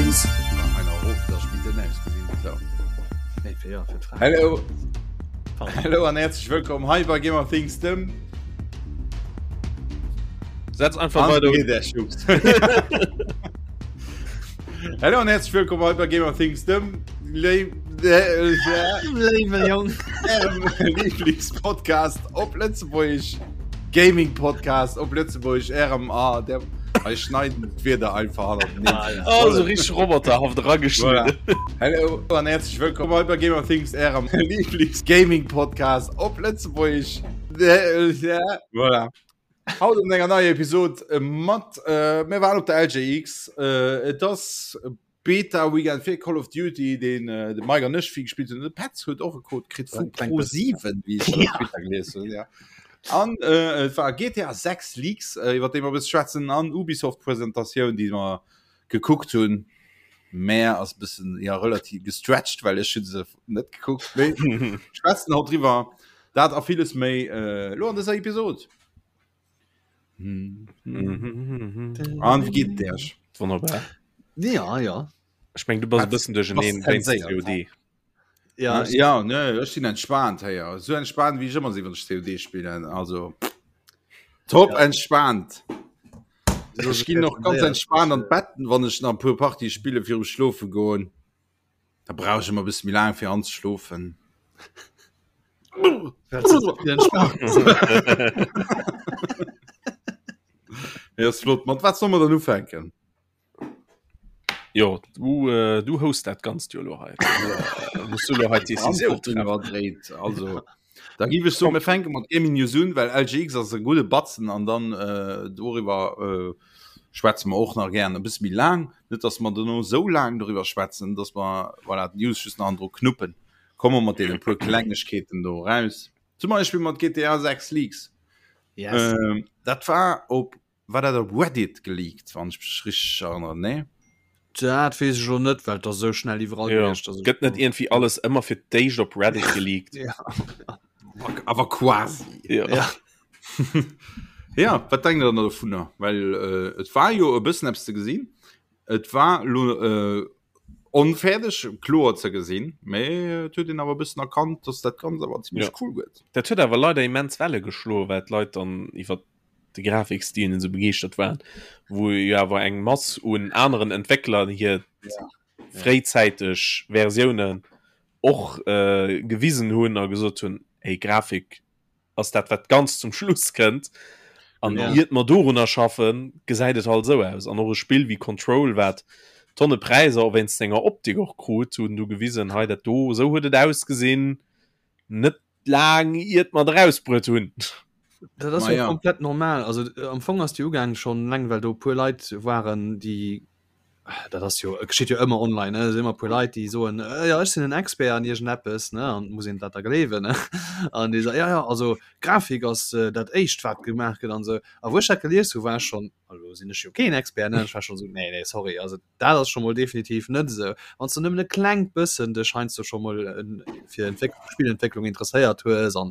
Things. Hallo. Hallo an herzlich willkommen hei bei Gamer Things dem Setz einfach weiter. Hallo an herzlich willkommen hei bei Gamer Things dem Lieblingspodcast op Lëtzebuerg Gaming Podcast op Lëtzebuerg RMA der Ech schneiden d'Wierder einfach hannerteneen. Ah, ja. Oh, so richtig roboterhaft rageschnitten. Voilà. Hallo an herzlich willkommen hei bei Gamer Things, ärem Lieblings-Gaming-Podcast op Lëtzebuerg. Voilà. Haut an enger neier Episod mat, äh, mir waren op der LGX. Äh, et ass Beta Weekend fir Call of Duty, deen de Mike an ech vill gespillt hunn. De Petz huet och e Code kritt vu Pro7, wéi ech op Twitter gelies hunn. Ja. An äh, et war GTA 6 Leaks, äh, iwwer déi mer e bësse schwätzen, an Ubisoft-Presentatioun, déi mer gekuckt hunn. Mä ass e bëssen ja, relativ gestretched, well ech hu se net gekuckt. Mee schwätzen haut driwwer. Dat a villes méi äh, lo an dëser Episod. An wie geet et Iech? Wonnerbar. Ja, ja. Ech meng du bass e bëssen duercherneen wéinst COD. Ja, ja ne, ech sinn entspaant héier. Sou entspaant wéi ech ëmmer sinn, wann ech COD spillen. Also top ja. entspaant. Ech ginn och ganz entspaant an d'Bett, wann ech nach e puer Partie spille virum Schlofe goen. Da brauch ech ëmmer e bësse méi laang fir anzeschlofen. Ja, ass flott. Mat wat soll mer dann ufänken? Jo, du, äh, du host dat ganzt jo lo hei. Äh, Muss du lo hei d'Decisioun treffen. Iwwerdréit. Also, da giff ech soen, mir fänke mat Gaming News un, well LGX ass e gudde Batzen an dann äh, doriwwer äh, schwätze mer och nach gären e bësse méi laang. Net, dass mer dono esou laang doriwwer schwätzen, dass mer voilà, d'News just nach andro knuppen. Komme mat deene puer Klengegkeeten do eraus. Zum Beispill mat GTA 6 Leaks. Yes. Ähm, dat war op war dat op Reddit geleakt, wann ech mech richteg erënneren, nee? Dat weess ech elo net, well et ass esou schnell iwwerall Ja. gewiescht, dass ech Gëtt net iergendwéi alles ëmmer fir d'éischt op Reddit geleakt? Ja. Awer quasi. Ja. Ja. Ja, wat denkt der dann dovunner? Well äh, et war jo e bëssen eppes ze gesinn. Et war lo äh, onfäerdeg kloer ze gesinn, mä et huet een awer e bëssen erkannt, dass dat Ganzt awer zimmlech Ja. cool gëtt. Dat huet awer leider immens Welle geschloen, well d'Leit dann iwwer de Grafikstil esou begeeschtert waren, wou jo awer eng Mass un aneren Entwéckler hir Ja. fréizäiteg Versiounen och äh, gewisen hunn a gesot hunn, hey, Grafik ass dat wat ganz zum Schluss kënnt an ja. iert mer dorunner schaffen gesäit et halt sou aus an och e Spill wéi Control wat tonne Präisser och wéinst senger Optik och krut hunn du gewisen hei dat do sou huet et ausgesinn net laang iert mer et erausbruet hunn. Dat ass Ma jo ja. komplett normal also äh, am Fong ass déi ugaang schonn laang well do e puer Leit waren déi dat ass jo geschitt jo ëmmer online ne ëmmer puer Leit déi soen äh, ja ech sinn en Expert an iergendeppes ne an muss een dat da gleewen ne an déi so ja ja also Grafik ass äh, dat éischt wat gemaach gëtt an sou a wou ech dat gelies hu war ech schonn elo sinn ech jo keen Expert ne ech war schonn sou nee nee sorry also dat ass scho mol definitiv net esou wann s du nëmmen e klengt bëssen dech heiansdo scho mol en fir Entwéck Spillentwécklung interesséiert hues an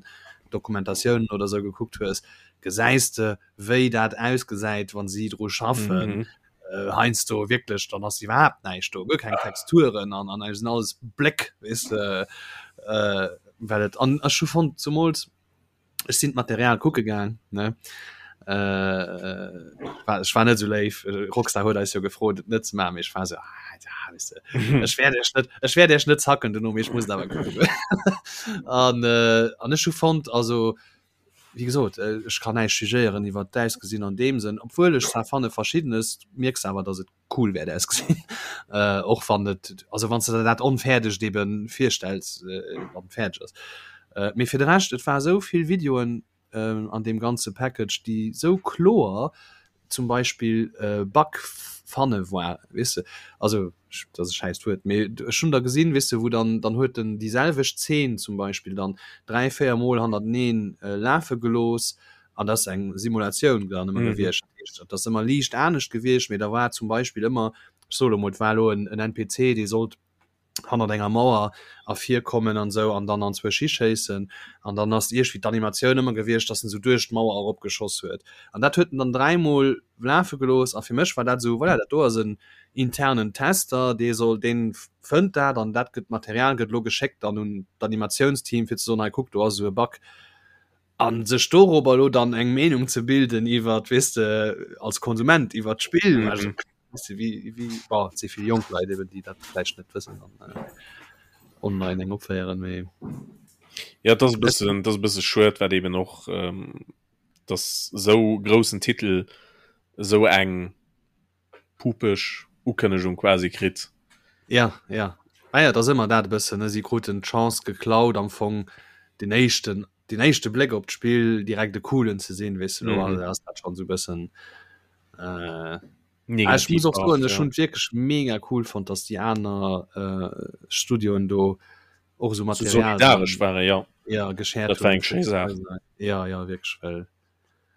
Dokumentatiounen oder sou gekuckt hues gesäis de wéi dat ausgesäit wann si dru schaffen Mhm. äh, heiansdo wierklech dann ass iwwerhaapt näischt do guer keng Texturen an an sinn alles Bléck weess de äh, well et an ech hu fonnt zumools ech sinn d'Material kucke gaang ne äh, war, ech war net sou léif Rockstar huet eis jo gefrot et net ze maachen mee ech war sou ah, ja, weess de, ech wäert iech net ech wäert iech net zacken dono mee ech muss et awer kucken an äh, an ech hu fonnt also Wéi gesot, ech kann näischt jugéieren iwwert d'Ausgesinn an deem Sënn, obwuel ech zwar fanne verschiddenes mierks awer, datt et cool wäert ausgesinn, och wann et, also wann s de der dat onfäerdegt ebe virstells, wann et fäerdeg ass. Mee fir de Rescht, et war esou vill Videoen an deem ganze Package, déi esou kloer zum Beispill Bug fanne war, weess de, also dat ass e schäisst Wuert, mee ech hunn der gesinn, weess de, wou dann, dann huet en déi selwecht Zeen zum Beispill dann 3, 4 Mol hannerteneen lafe gelooss an dat ass eng Simulatioun dann ëmmer gewiescht, dat heescht, dat ass ëmmer liicht anescht gewiescht, mee da war zum Beispill ëmmer, ech soe lo mol, et war elo en NPC, dee sollt. Hannert enger Mauer ervirkommen an esou an dann anzwousch hischéissen an dann ass iergwéi d'Animatioun ëmmer gewiescht, dass en esou duerch d'Mauer eropgeschoss huet an dat huet en dann dräimol lafe gelooss a fir mech war dat esou, voilà, dat do ass en internen Tester, dee soll, dee fënnt dat an dat gëtt, d'Material gëtt elo geschéckt dann un d'Animatiounsteam fir ze soen, hei kuck, do ass esou e Bug. A sech dorobber elo dann eng Meenung ze bilden iwwert, weess de, als Konsument iwwert d'Spill, also Weißt du, wie, wie, boah, et si vill jonk Leit eben, déi dat vläicht net wëssen an äh, online eng opféieren, mee Ja, das e bëssen, das e bësse schued, wat eben och ähm, dass sou groussen Titel sou eng pupeg Ukënnegung quasi kritt. Ja, ja. Ah ja, dat ass ëmmer dat e bëssen, ne? Si kruten d'Chance geklaut am Fong den éischten, den éischte Bléck op d'Spill direkt e coolen ze sinn, weess de, lo mm -hmm. ass dat schon sou bëssen äh, Ah, ech muss och soen, ech hunn wierklech mega cool fonnt, dass déi aner äh, Studioen do och esou Material solidaresch waren, ja. Ja, geshared Dat war eng schéi Saach. Ja, ja, wierklech, well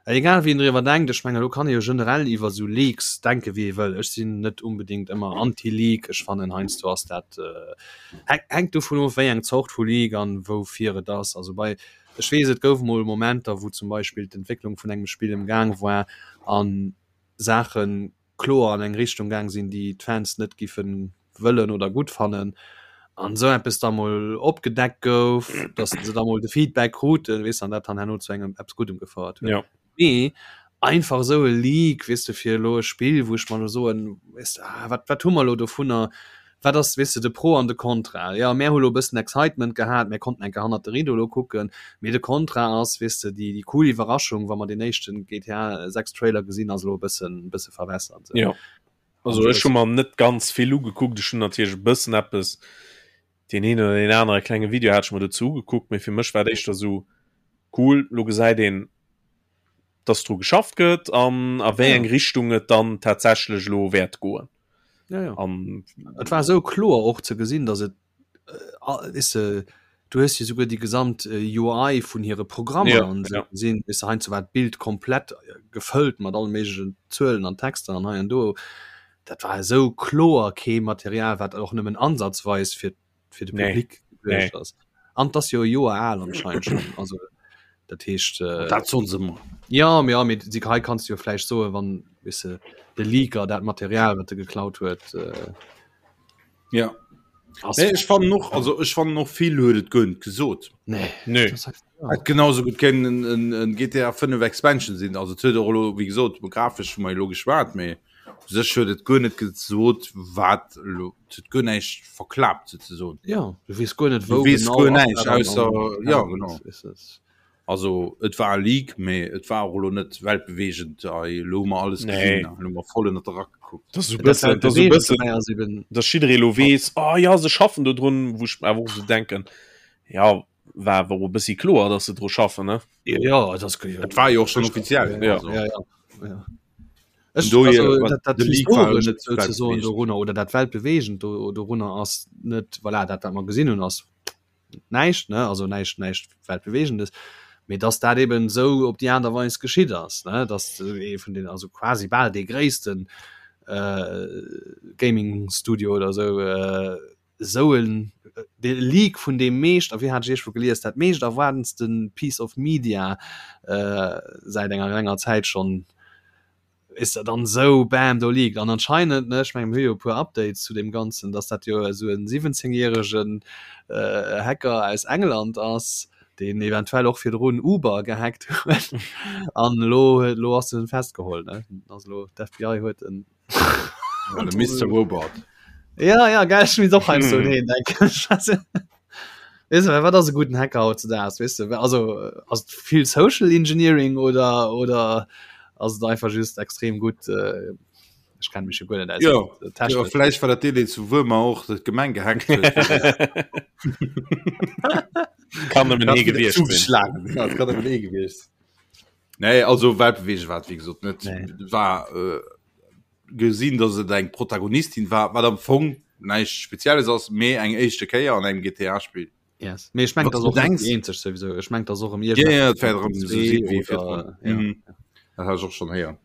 äh, egal wéi een driwwer denkt, ech mengen, elo kann ee jo generell iwwer esou Leaks denke wéi ee wëll. Ech sinn net unbedingt ëmmer anti-Leak, ech fannen heiansdo ass dat äh, hänkt dovun of, wéi eng Zort vu Leak an woufir et ass. Also bei ech weess, et gouf mol Momenter, wou zum Beispill d'Entwécklung vun engem Spill am Gaang war an Saache kloer an eng Richtung gaang sinn, déi d'Fans net giffe wëllen oder gutt fannen, an esou eppes da mol opgedeckt gouf, datt se da mol de Feedback kruten, weess de, an dat dann herno zu engem eppes Guddem gefouert huet. Ja. Mee einfach esou e Leak, weess de, fir elo e Spill, wou ech mer elo soen, weess de, ah, wat, wat hu mer elo dovunner, Wat ass, weess de, de Pro an de Contra? Jo, mär hu lo e bëssen Excitement gehat, mär konnten eng Kéier hannert de Rideau lo kucken, mee de Contra ass, weess de, déi, déi cool Iwwerraschung, wa mer deen éischten GTA 6 Trailer gesinn, ass elo e bëssen, e bësse verwässert esou. Jo, also ech hu mer net ganz vill ugekuckt, ech hunn natierlech e bëssen eppes, deen een oder deen anere klenge Video hat ech mer dozou ugekuckt, mee fir mech war et éischter esou, cool, lo gesäit een, dass dru geschafft gëtt an a wéi eng Richtung et dann tatsächlech elo wäert goen. Ja, ja. An et war sou kloer och ze gesinn, dass et äh, is, äh, du hues jo souguer déi gesamt äh, UI vun hire Programmer ja, an ja. gesinn, is heiansdo war d'Bild komplett äh, gefëllt mat allen méiglechen Zuelen an Texter an hei an do. Dat war esou kloer kee Material, wat och nëmmen ansatzweis fir fir de Public nee. ass. An das jo Joer al anscheinend schon also dat heescht äh, dat soll se immer. Ja ja mit sie hei kannst du jo vläicht soe wann wisse de Leaker dat Material wat de geklaut huet äh, ja nee, ich fand noch also ich fand noch viel huet et gönnt gesot nee. Nee. Et genauso gut kennen en, en GTA 5 Expansion sinn also huet och wie gesot grafisch mal logisch wat méi U sech huet et guer net gesot, wat elo, et huet guer näischt verklaapt souzesoen. Ja, du weess guer net, wou genau ass dat an, ausser, ja, genau. Also et war e Leak, mee et war och elo net weltbeweegend, ei elo hu mer alles gesinn, elo hu mer voll ënnert de Rack gekuckt. Dat ass esou bëssen, dat ass esou bëssen, dass jidderee elo weess, oh ja, se schaffen do drun, wou ech mer awer och esou denken, ja, war awer och e bëssi kloer, dass se dru schaffen, ne? Ja, dat ass, Et war jo och schonn offiziell, ja, ja, ja. Ech, do, also, dat, dat historescht sozusagen dorunner oder dat weltbewegend do, dorunner ass net voilà, dat wat mer gesinn hunn ass näischt ne also näischt näischt weltbewegendes mee dass dat eben sou op déi Aart a Weis geschitt ass ne dass ee vun den also quasi bal dee gréissten äh, Gaming Studio oder sou äh, sou en de Leak vun deem meescht a wéi hat ech iergendwou gelies dat meescht erwaardenste Piece of Media äh, säit enger langer Zäit schonn is dat dann sou bam do leakt an anscheinend ne ech mengen mir hu jo e puer Updates zu deem Ganzen dass dat jo esou en 17 järegen äh, Hacker aus England ass deen eventuell och virdrun Uber gehackt huet an elo elo ass en festgeholl ne also elo d'FBI huet en Ja, de Mr. Robot. Ja ja geil ech misst och heiansdo un heen denken. Weess de, wat ass e gudden Hacker hautzedaags, weess de? Also ass et vill Social Engineering oder oder ass et einfach just extrem gutt äh, ech kenne mech jo guer net aus Ja, mat ja, Technik. vläicht war dat deen, deen zu Wuermer och d'Gemeng gehackt huet. Kann nëmmen Dat ee gewiescht sinn. zugeschlagen. Ja, dat kann nëmmen ee gewiescht sinn. Nee, also weltbewegend war et wéi gesot net. Nee. War äh, gesinn, dass et eng Protagonistin war, wat am Fong näischt Spezielles ass, mee eng éischte Kéier an engem GTA-Spill. Yes. Mee ech meng, Wat dat du ass och net denkst- déi eenzeg souwisou. Ech meng, dat ass och ëm Ja, ja, et wäert erëm zwee esou sinn wéi oder virdrun. ja. Mhm. Dat hat ech och schonn héieren.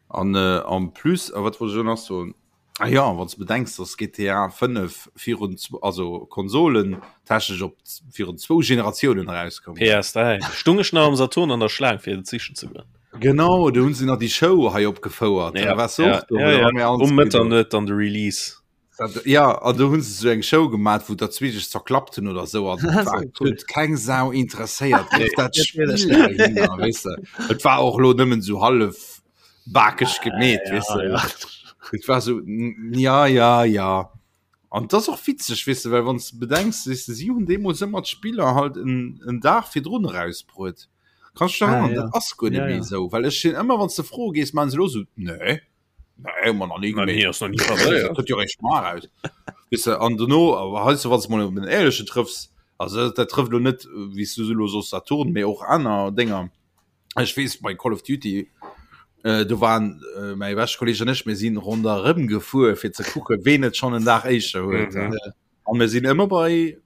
An äh, en plus, a wat wollt ech elo nach soen? Ah ja, wann du bedenks, dass GTA 5 virun also Konsolen technesch op virun zwou Generatiounen erauskoum. PS3 stung ech nach am Saturn an der Schlaang fir et sichen ze goen. Genau, do hunn se nach déi Show hei opgefouert. Ja, ja, ja, ja, ja. Um Mëtternuet dann de Release. Dat, ja, an do hunn se sou eng Show gemat, wou der zwee sech zerklappt hunn oder sou an war huet keng Sau interesséiert. Dat Spiel dahinner, weess de. Et war och lo nëmmen sou hallef bakeg gemeet ja, weißt du? ja. Et war so ja ja ja an das och witzeg weißt du, well wann du bedenkst weißt du, sie hunn deemools ëmmer d'Spiller halt en, en Dag virdrun rausbruet kannst du dich ah, ja. dat ass guer net ja, méi ja. sou well ech sinn ëmmer wann du froe gees man se lo so nee nee hu mer nach nie gemeet nee, ass noch nie passiert. Kënnt jo réischt mar raus weißt du, an dono awer heiansdo wann du mol op en éierlechen trëffs also dat trëfft lo net wéi s du lo soss Saturn mee och aner Dénger Ech weess bei Call of Duty äh, do waren äh, mäi beschte Kolleg an ech, mir sinn ronderëm gefuer fir ze kucke ween et schonn en Dag éischter huet. Mhm. An mir sinn ëmmer bei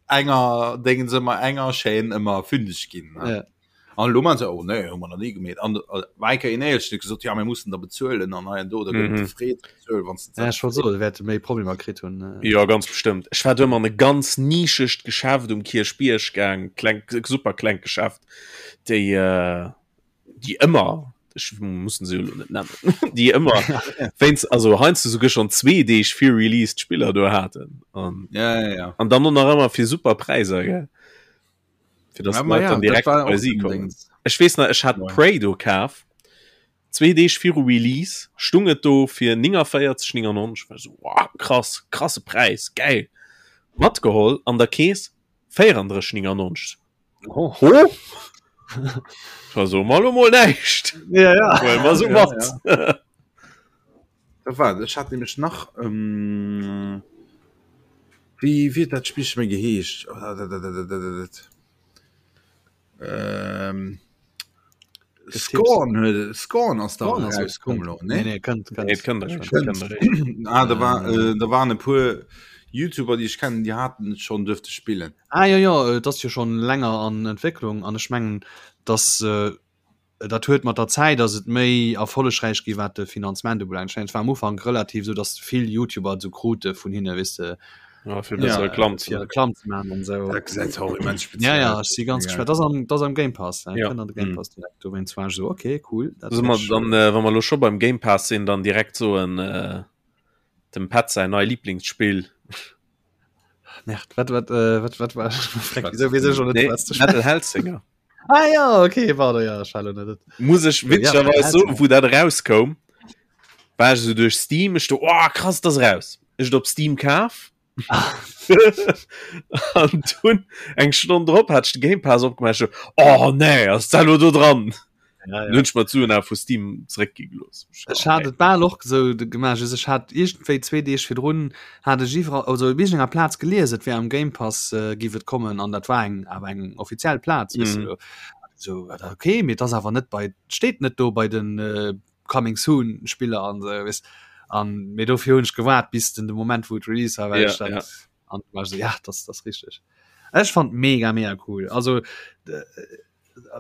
enger Déngens ëmmer enger Chaîne ëmmer fündeg ginn. ne? Ja. An elo man se oh nee, hu mer nach nie gemeet. An äh, war eng Kéier een éierlechen huet gesot, ja mir mussen da bezuelen an hei an do, da gëtt Mhm. et gefreet bezuel wann s de Ja, ech wollt soen, wäerte méi Problemer kritt hunn. äh. Jo, ganz bestëmmt. Ech war do ëmmer an e ganz nischegt Geschäft um Kierchbierg gaang, kleng, super klengt Geschäft. déi äh, déi ëmmer ech mussen se jo net nennen déi ëmmer wéinst also heiansdo souguer schon zwee Deeg fir Release d'Spiller do haten an ja, ja, ja. an dann och nach ëmmer fir super Präisser gell fir dass Ja, ma d'Leit ja, dann dat direkt war bei och si den kommen. Dings. Ech weess nach ech hat Ja. Prey do kaf zwee Deeg viru Release stung et do fir 49,99 war so wow, krass krasse Präis geil matgeholl an der Kees 34,99 Oh. Ho? Also mal mol näischt. Ja, ja. Well mer so Ja, mat. Da war, ech hat nämlech nach ähm, wéi wéi huet dat Spillche méi geheescht? Oh, da, da, da, da, da, da, da. Ähm, Scorn huet Scorn ass da Scorn ass rauskomm lo, ne? Nee, nee, kënnt, kënnt. Nee, et kënnt eréischt, et kënnt eréischt. Ah, da war, äh, da waren e puer YouTuber, déi ech kennen, déi haten et schonn duerfte spillen. Ah jo, jo, et ass jo schonn länger an Entwécklung an ech mengen, dass äh, dat huet mat der Zäit ass et méi erfollegräich gi wat de Finanzement ubelaangt. Ech mengen, et war am Ufank relativ esou, dass vill YouTuber et esou krute vun hinne, weess de, Ja, fir besser Reklamm ze fir maachen. Reklamm ze maachen an esou. Dat gesäit och immens speziell Ja, ja, aus. ech si ganz Ja. gespannt. Dat ass am, dat ass am Game Pass, ne? Ja. Kënnt an de Game Mhm. Pass direkt. Dowéinst war ech esou, okay, cool. Dat Solle mer wäert ech, dann, äh, wa mer elo scho beim Game Pass sinn, dann direkt soen, äh, dem Pat säin nei Lieblingsspill. Merde, wat, wat, äh, wat, wat war? Freck, wieso weess ech schon net, Nee, was du Metal Hellsinger. Ah ja, okay, warte, ja, ech war lo net. Muss ech Ja, witzegerweis Metal soen, wou dat erauskoum, war ech esou duerch Steam, ech do, oh krass, dat ass eraus. Ech et op Steam kaf. An dunn eng Stonn drop hat ech de Game Pass opgemaach, ech so, oh nee, ass dat elo do dran? Ja, ja. Dann hunn ech mer d'Suen awer vu Steam zeréckgi gelooss. Ech hat et bal och esou gemaach, just ech hat iergendwéi zwee Deeg virdrun hat ech iwwerall, also op iergendenger Plaz gelies, et wär am Game Pass giff et kommen an dat war eng awer eng offiziell Plaz, weess Mhm. de. Esou, okay, mee et ass awer net bei, et steet net do bei den Coming Soon Spiller an esou, weess. An mee dofir hunn ech gewaart bis den de Moment wou et Release war, well Ja, ech dat ja. an war ech esou, ja, dat ass richteg. Ech fand mega mega cool. Also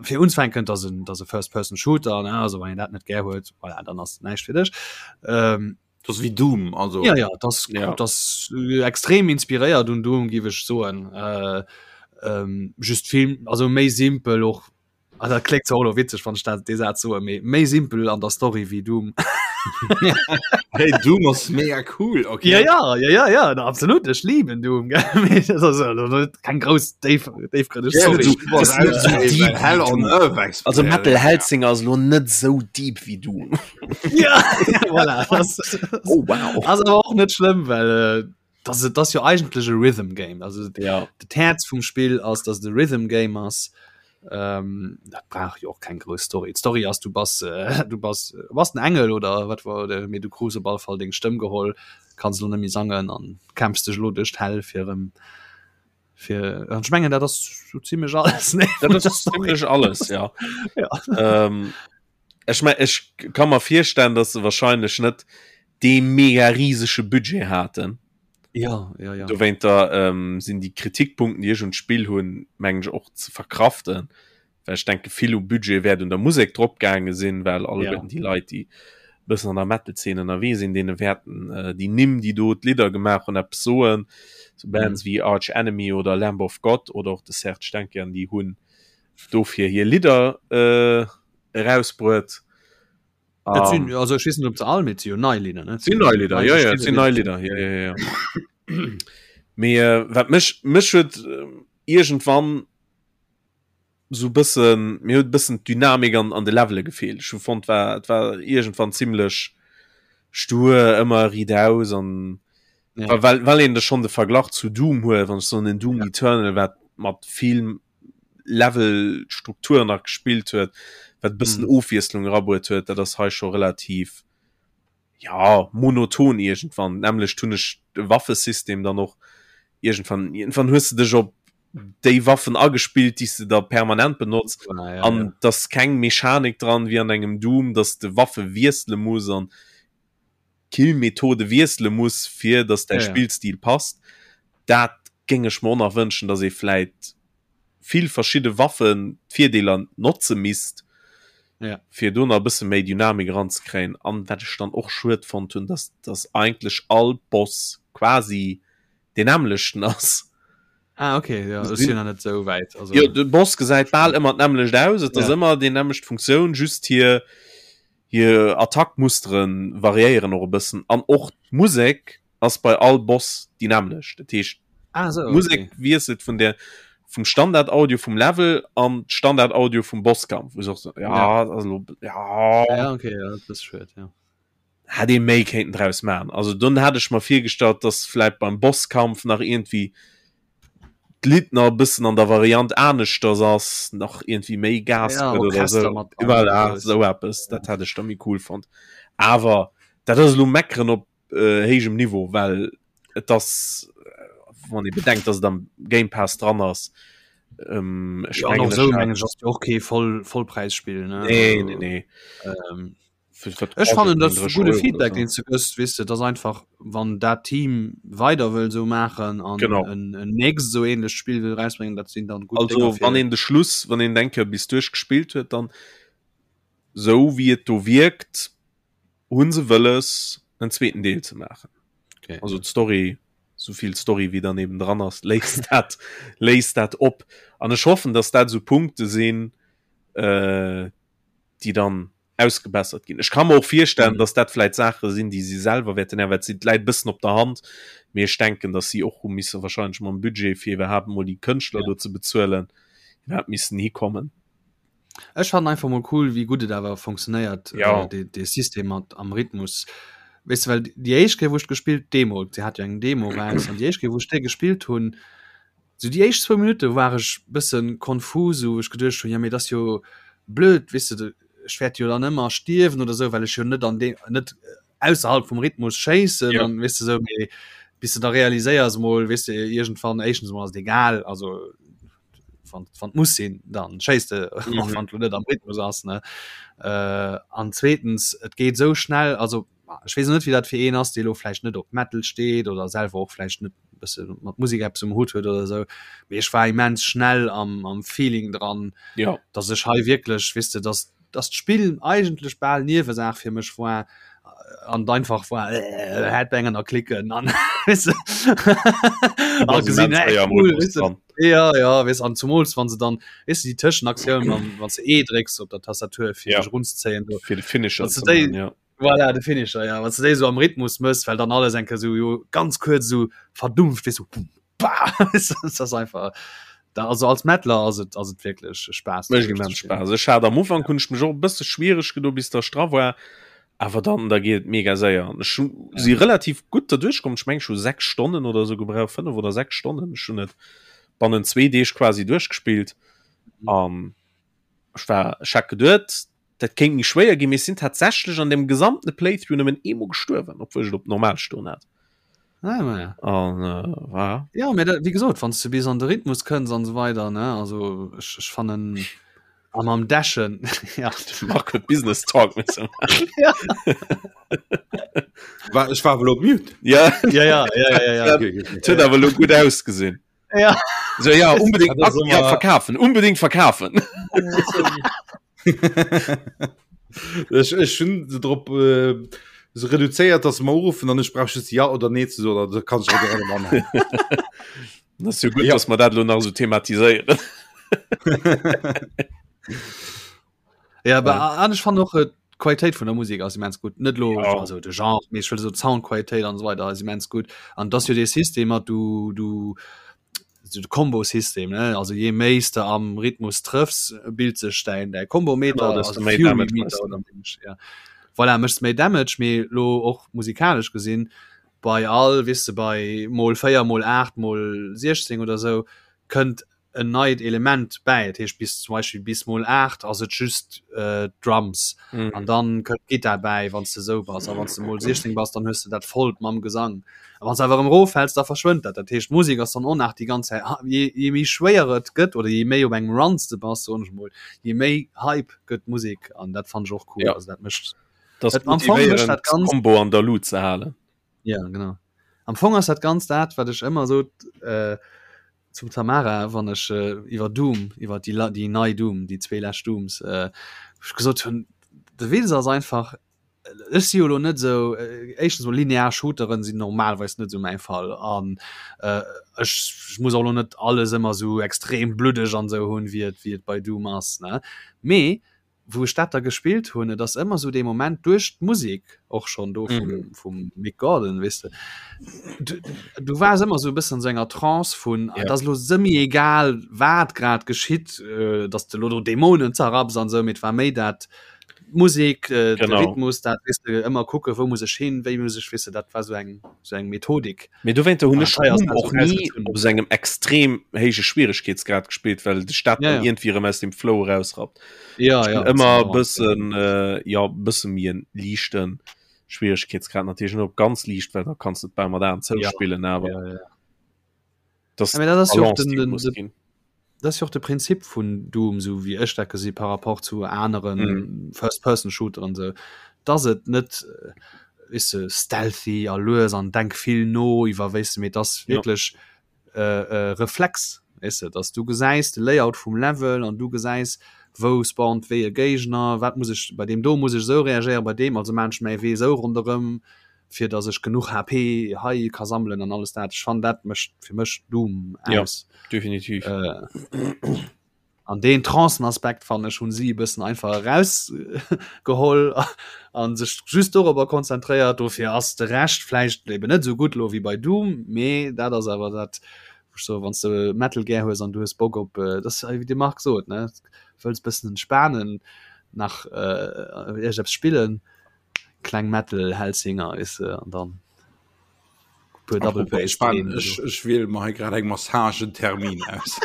fir unzefänken, dat ass en, dat ass e First-Person-Shooter, ne, also wann een dat net gär huet, voilà, dann ass näischt fir dech. Ähm, Dat ass wéi Doom, also. ja, ja, dat ass, Ja. dat ass extrem inspiréiert un Doom, géif ech soen. Äh, ähm, just vill, also méi simpel och, also dat kléngt zwar och elo witzeg, wann ech dat, dee Saz soen, mee méi simpel an der Story wéi Doom. Hey, Doom ass mega cool, okay. Ja, ja, ja, ja, ja, na, absolut, ech lieben Doom, gell? Mee dat ass elo net keng grouss déif, déifgrënneg Ja, Story. du bass Das ist net so deep Hell wéi on Doom. Earth Expert. Also Metal Hellsinger ass elo net sou deep wéi Doom. Ja, voilà, das, Oh wow. ass awer och net schlëmm, well äh, das, das ass jo eigentlech e Rhythm Game. Also Ja. dat Häerz vum Spill ass, dass et e Rhythm Game ass. Ähm, dat brauch jo och keng grouss Story. D'Story ass, du bass, äh, du bass, äh, bass en Engel oder wat war, oder, mee du krus op alle Fall deng Stëmm geholl, kanns elo net méi sangen an kämpfs dech elo duerch d'Hell fir erëm fir an ech mengen dat ass sou zimmlech alles ne? Dat ass zimmlech alles, ja. Ja. Ähm, ech mein, ech kann mer virstellen, dass se wahrscheinlech net dee mega riesege Budget haten. Ja, ja, ja. Dowéinter ähm, sinn déi Kritikpunkten, déi ech un d'Spill hunn, mengen ech och ze verkraften. Well ech denke vill u Budget wäert un der Musek drop gaange sinn, well alleguerten Ja. déi Leit, déi. Bëssen an der Metal-Zeen ënnerwee sinn, deene wäerten äh, déi Nimm, déi do d'Lidder gemaach hunn, eppes soen. So Bands mhm. wéi Arch Enemy oder Lamb of God oder och de Serge Tankian, déi hunn dofir hir Lidder äh, erausbruet. Um, sinn, also ech weess net, ob se all mit si nei Lidder ne? Sinn nei Lidder, ja, ja, sinn nei Lidder, ja, ja, ja. Mee äh, wat mech mech huet äh, irgendwann sou bëssen, mir huet bëssen d'Dynamik an an de Levele gefeelt. Ech hu fonnt war et war iergendwann zimmlech stur, ëmmer riitaus an ja. well well een de schonn de Verglach zu Doom huet, wann ech soen en Doom ja. Eternal wat mat vill Levelstruktur nach gespillt huet, wat bëssen mm. Ofwiesslung erabruet huet, dat ass hei scho relativ ja monoton iergendwann. D'nämmlecht hunn ech de Waffesystem dann och iergendwann iergendwann hues de dech op déi Waffen agespillt, déi s de da permanent benotz ah, ja, an ja. dass keng Mechanik dran wéi an engem Doom, dass de Waffe wiessele muss an Killmethode wiessele muss, fir dass däi ja, ja. Spillstil passt. Dat géing ech mer och nach wënschen, dass ee vläit vill verschidde Waffen d'Virdeeler notze misst, ja. fir do nach e bësse méi Dynamik eranzekréien. An wat ech dann och schued fonnt hunn, dass dass eigentlech all Boss quasi deen nämmlechten ass. Ah, okay, ja, ech sinn nach net sou wäit. Also... Jo, de Boss gesäit bal ëmmer d'nämmlecht aus, et ass ja. ëmmer déi nämmlecht Funktioun, just hir hir Attackmustere variéieren och e bëssen an och d'Musek ass bei all Boss déi nämmlecht. Dat heescht, ah, so, Musek okay. wiesselt vun der vum Standard-Audio vum Level an Standard-Audio vum Bosskampf. Wo so, ja, ja. Also, ja. ja, okay, ja, das ist schön, ja. Hätt ee méi kéinten draus maachen. Also dunn hat ech mer virgestallt, dass vläit beim Bosskampf nach iergendwéi d'Lidd nach e bëssen an der Variant aneschters ass, nach iergendwéi méi Gas ja, gëtt oder sou. Mat dran, Voilà, sou eppes, dat hätt ech da méi cool fonnt. Awer dat ass elo meckeren op äh, héijem Niveau, well et ass, wann ee bedenkt, dass et am Game Pass dran ass, ähm, ech ja, mengen, sou mengen ech ass jo och kee Voll Vollpräisspill, ne? Nee, nee, nee. Ähm, Ech fannen dat gudde Feedback deen ze gëss wis du dat einfach wann dat Team weider wëll so machen an en en nächst so ähnlech Spiel will rausbringen dat sinn dann gut also wann een de Schluss wann een denke bis duerch gespielt huet dann sou wéi et do wierkt hunn se wëlles en zweeten Deel ze maachen okay. also d'Story souvill Story wéi dann eben dran ass léist dat léist dat op an ech hoffen dass dat sou Punkte sinn äh, déi dann ausgebessert ginn. Ech ka mer och virstellen, mhm. dass dat vläit Saache sinn, déi si selwer wäerten änneren, well et läit bëssen op der Hand. Mee ech denken, dass si och hu misse wahrscheinlech mam Budget fir iwwerhaapt mol déi Kënschtler ja. do ze bezuelen, iwwerhaapt missen hikommen. Ech fannen einfach mol cool, wéi gutt et awer funktionéiert, ja. äh, de, de System mat am Rhythmus. Weißt du, well déi éischt Kéier, wou ech gespillt, Demo, se hat jo eng Demo raus, an déi éischt Kéier, wou ech déi gespillt hunn, Sou déi éischt zwou Minutte war ech bëssen konfus, wou ech geduecht hunn, jo mee et ass jo blöd, weess de, ech wäert jo dann ëmmer stierwen oder sou, well ech jo net an deem, net ausserhalb vum Rhythmus schéissen Ja. an weess de sou, mee bis de da realiséiers mol, weess de, iergendwann, éischtens mol ass et egal, also wann wann et muss sinn, dann schéiss de, och Mhm. wann et lo net am Rhythmus ass, ne. An zweetens, et geet sou schnell, also ech weess net, wéi dat fir een ass, dee lo vläicht net op Metal steet oder selwer och vläicht net bësse mat Musek eppes um Hutt huet oder esou, mee ech war immens schnell am, am Feeling dran, ja. dass ech hei wierklech, weess de, dass, dass d'Spill eigentlech bal Niewesaach fir mech war an einfach war äh, Headbangen a klicken an weess de, a gesinn, ey, cool, weess de. Ja, ja, weess, an zumools wann se dann, weess de, déi Tëschenaktioun, wann, wann s de E drécks op der Tastatur fir Ja. dech runzezéien do, fir de Finisher Wann s ze du déi- maachen, ja. Voilà, de Finisher, ja. Wann du déi so am Rhythmus mëss, well dann alles enke so jo ganz kuerz so verdumpft, weess so bum, bah, das ass einfach da, also als Metaler ass et ass et wierklech Spaass. Mécht immens Spaass. Ech hat am Ufank hunn ech mech och e bësse schwiereg gedo bis der ech dra war, awer dann da geet et mega séier. An ech hu si relativ gutt derduerch komm. Ech meng ech hu 6 Stonnen oder sou gebraucht, 5 oder 6 Stonnen. Ech hunn et bannent zwee Deeg quasi duerchgespillt an ech war ech hat geduet dat kéint méi schwéier ginn, mee ech sinn tatsächlech an dem gesamte Playthrough nëmmen eemol gestuerwen, obwuel ech et op normal stoen hat. Ah, ma ja. An äh, war Ja, mee dat, wéi gesot, wann s du bis an de Rhythmus kënns an esou weider, ne, also ech, ech fannen a mam Dashen, ja. Marc huet Business Talk misse maachen. Ja. War, ech war awer elo op Mute. Ja, Ja, ja, ja, ja, ja. Okay, okay. et huet awer elo gutt ausgesinn. Ja. So, ja, unbedingt Das ja, immer- verkaufen, unbedingt verkaufen. Ech, ech hunn se drop äh, se reduzéiert, dass se mer uruffen an ech brauch just ja oder nee ze soen, da kann ech och direkt anhängen. Das ist jo gut, ja. dass mer dat lo nach so thematiséieren. Ja, aber ja. an ech fand och äh, d'Qualitéit vun der Musik ass immens gut. Net lo ja. also de Genre, mee ech wëll so d'Soundqualitéit an so weiter ass immens gut. An dass jo dee System hat du du so de Combo-System ne also je méi s de am Rhythmus trëffs, bilt sech däin däi Combo-Meter, Genau, desto also méi Fury Damage Meter méchs du. oder méi, ja. Voilà, méchs méi Damage, mee lo och musikalesch gesinn bei all weess de bei mol 4 mol 8 mol 16 oder sou kënnt en neit Element bäi. Dat heescht bis zum Beispill bis mol 8 ass et just äh, Drums mm. an dann kënnt Gitar bäi, wann du sou bass. A wann du mol 16 bass, dann hues du dat vollt mam Gesang. A wann du awer erëm roffäls, da verschwënnt dat. Dat heescht d'Musek ass dann och nach déi ganz Zäit je, je méi schwéier et gëtt oder je méi op engem Run s de bass, soen ech mol, je méi Hype gëtt d'Musek an dat fannen ech och cool. Ja. Also dat mécht Das Et am Fong mécht dat ganz Combo an der Lut ze halen. Ja, genau. Am Fong ass dat ganz dat, wat ech ëmmer sot äh, zum Tamara, wann ech äh, iwwer Doom, iwwer déi, déi nei Doom, déi zwee lescht Dooms, äh, ech gesot hunn, de Witz ass einfach, ech si jo lo net sou, äh, éischtens mol linear Shooteren sinn normalerweis net sou mäi Fall an äh, ech, ech muss och lo net alles ëmmer sou extrem bluddeg an sou hunn, wéi et, wéi et bei Doom ass, ne? Mee wou ech dat da gespillt hunn, et ass ëmmer sou dee Moment duerch d'Musek och schonn do vum, mm. vum Mick Gordon, weess de, du, du waars ëmmer sou e bëssen an sou enger Trance vun, ja. et ass lo semi egal, wat grad geschitt, äh, dass de lo do Dämonen zerrapps an sou, mee et war méi dat Musek, äh, de Rhythmus, dat weess de, ëmmer kucke wou muss ech hin, wéi muss ech, weess de, dat war sou eng, sou eng Methodik. Mee dowéinter hunn ech Doom och ni op sou engem extrem héije Schwieregkeetsgrad gespillt, well dech dat dann iergendwéi erëm aus dem Flow erausrappt. Ja, ja, ëmmer e bëssen, jo, e bësse méi en liichte Schwieregkeetsgrad, natierlech net op ganz liicht, well da kanns de et bal mat Aen zou spillen, awer dat ass jo och den, den, Dat ass jo och de Prinzip vun Doom, sou wéi ech dat gesi par rapport zu anere mm. First-Person-Shooteren, sou, dass et net äh, weess de, stealthy a lues an denk vill no iwwer weess de, mee dass wierklech ja. äh, äh, Reflex, weess de, dass du gesäis de Layout vum Level an du gesäis, wou spawnt wéi e Géigner, wat muss ech bei deem do muss ech sou reagéieren, bei deem also maan ech mäi Wee sou ronderëm. fir dass ech genuch HP hei ka sammelen an alles dat. Ech fannen dat mécht fir mech Doom aus. Ja, definitiv. Äh, an deen Trancenaspekt fannen ech hunn si e bëssen einfach erausgeholl an sech just dorobber konzentréiert. Dofir ass de Rescht vläicht eben net esou gutt lo wéi bei Doom, mee dat ass awer dat wou ech soen, wann s de Metal gär hues an du hues Bock op, äh, dat ass wéi de Marc sot, ne, wëlls bëssen entspanen, nach äh, iergendeppes spillen, Kleng Metal Hellsinger weess de an dann puer Double Bass. Ech, ech wiel mer hei grad eng Massagentermin aus.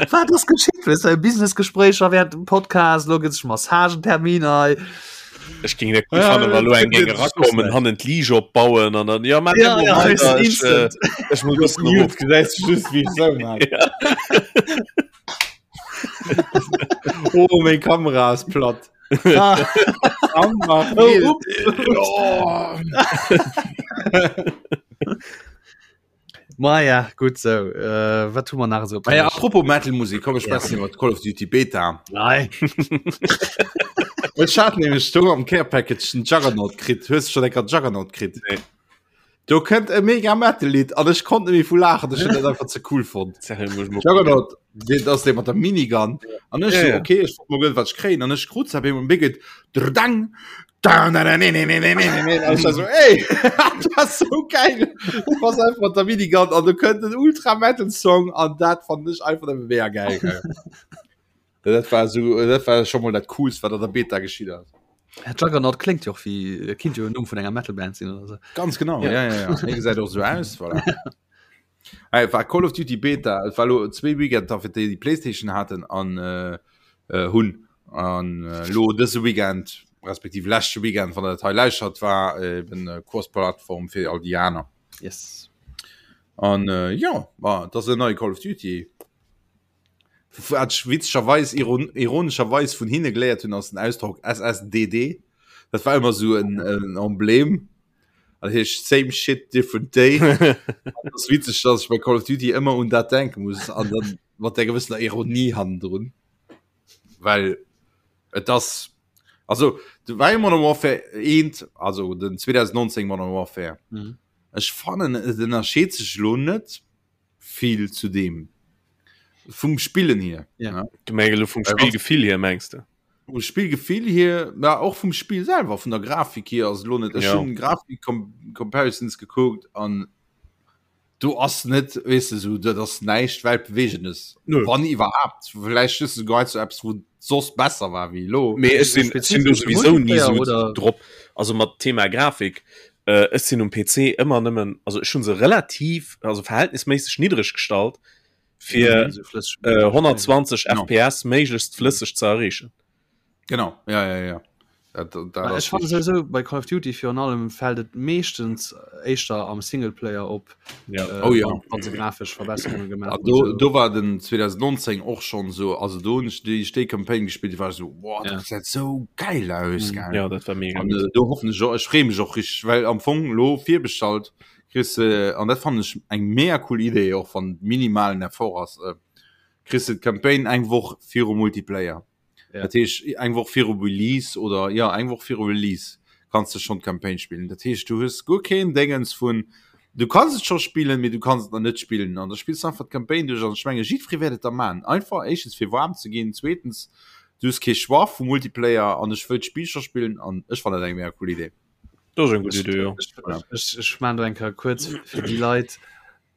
Wat ass geschitt? Weess de, Businessgespréicher während dem Podcast, lo gëtt sech Massagentermin hei. Ech géing dat gutt fannen, wa lo eng géing erakommen, hannen d'Liege opbauen an dann, ja, Ja, ja, weess de, instant. ech muss e bëssen erof. Gesäis du just, wéi ech sou man. Oh, meng Kamera ass platt. Ah. Oh, oh. Ma ja, gut so. Äh, wat hu mer nach so? Ah ja, apropos Metal-Musik, komm, ech schwätzen iwwer Call of Duty Beta. Nein. Ech hat nämlech do am Care Package den Juggernaut kritt. Hues du schon enker Juggernaut kritt? Nee. Do kënnt e mega Metal-Lidd an ech konnt net méi vu laachen, ech hunn dat einfach ze cool fonnt. Juggernaut, deen ass dee mat der Minigun. An ech Ja, so, ja. okay, ech wollt mol gëllen, wat ech kréien. An ech krut se op eemol, an geet drdang, da, na, na, ne, ne, ne, ne, ne, ne, ne. An ech war so, ey, dat ass so geil. Du bass einfach mat der Minigun an do kënnt en Ultra Metal Song an dat fand ech einfach nëmme mega geil. Dat war so, dat war schon mal dat coolst, wat an der Beta geschitt ass. Ja, Juggernaut klingt jo och wéi, kinnt jo en Numm vun enger Metal-Band sinn oder sou. Ganz genau, ja, ja, ja. Hie gesäit och sou aus, voilà. Hey, war Call of Duty Beta, et war lo zwee Weekender fir déi, déi Playstation haten an äh, äh, hunn. An äh, lo dëse Weekend, respektiv leschte Weekend, wann der dat hei lauschtert, war eben äh, Cross-Plattform fir all déi aner. Yes. An äh, ja, ma, dat ass en neie Call of Duty. Wat ech witzegerweis, ironescherweis vun hinne geléiert hunn, ass den Ausdrock SSDD. Dat war ëmmer esou en, en Emblem. Dat heescht Same Shit, Different Day. Dat ass witzeg, dass ech bei Call of Duty ëmmer un dat denke muss an dann mat där gewëssener Ironie hannendrun. Well et ass. Also du war Modern Warfare 1, also den 2019 Modern Warfare. Mhm. Ech fannen et ënnerscheet sech lo net vill zu deem vum Spillen hier. Ja. Ne? Du meng elo vum Äh, was- Spillgefill hier mengs de? Vum Spillgefill hier, ja, och vum Spill selwer, vun der Grafik hier ass lo net. Ech Ja. hunn Grafik Comparisons gekuckt an do ass net weess de sou dat ass näischt weltbewegendes Nö. wann iwwerhaapt vläicht just souguer zu eppes wou soss besser war wéi elo Mee ech sinn ech sinn do Spezifesch souwisou ni Multiplayer sou oder? drop also mat Thema Grafik äh, ech sinn um PC ëmmer nëmmen also ech hunn se relativ also verhältnisméisseg niddreg gestallt fir Esou flësseg äh, 120 Genau. FPS méiglechst flësseg ze erreechen. Genau ja ja ja dat, dat, dat Ech ass fand richtig. sowieso bei Call of Duty virun allem fällt et meeschtens éischter am Singleplayer op Ja. äh, Oh ja. wann, wann se grafesch Verbesserungen gemaach Ah, hunn, do, so. do war den 2019 och schon so also do hunn ech déi déi Campaign gespielt, déi war so boah, Ja. dat gesäit sou geil aus Mhm. gell. Ja, dat war mega An gutt. äh, do hoffen ech och, ech freeë mech och richtig, well am Fong lo virbestallt kriss de, an dat fannen ech eng mega cool Idee och wann minimalen Effort ass, äh, kriss de d'Campaign eng Woch virum Multiplayer. Ja. Dat heescht eng Woch viru Release oder ja eng Woch viru Release kanns du schon d'Campaign spillen. Dat heescht du hues guer keen Déngens vun du kanns et scho spillen, mee du kanns et nach net spillen an da spills du einfach d'Campaign duerch an ech menge jiddweree wäert et da man. Einfach éischtens fir waarm ze ginn, zweetens du hues kee Choix vum Multiplayer an ech wëll d'Spill scho spillen an ech fannen dat eng mega cool Idee. Dat ass eng gutt Idee, jo. Ech, ech, ech man do eng Kéier kuerz fir déi Leit,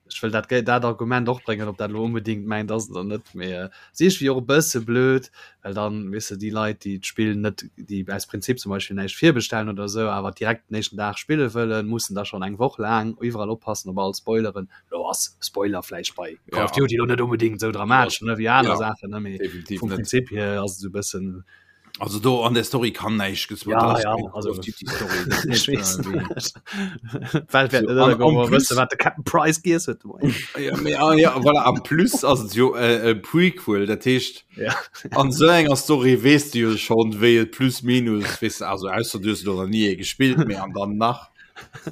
ech wëll dat dat Argument och bréngen, ob dat elo onbedéngt mäint ass oder net, mee si ech wéi och e bësse blöd, well dann, weess de, déi Leit, déi d'Spill net, déi aus Prinzip zum Beispill näischt virbestellen oder esou, awer direkt den éischten Dag spille wëllen, mussen da schonn eng Woch laang iwwerall oppassen op all Spoileren. Elo ass Spoiler vläicht bei Call of Ja. Duty elo net onbedéngt esou dramatesch, ne, wéi aner Ja, Saachen, ne, mee definitiv vum net. Prinzip hier ass et esou e bëssen, Also do an der Story kann näischt gespoilt Ja, dat ass ja, keng also Call of Duty Story dat ech net, weess äh, wéi- D'Welt wäert So, net an- ënnergoen, en wa plus- wësse wat de Captain Price giess huet de Moien. Ja, mee, ah, ja, voilà, en plus ass et jo äh, e Prequel, dat heescht Ja. an sou enger Story weess du jo schon wéi et plus minus weess de, also ausser du hues elo nach ni ee gespillt, mee an dann nach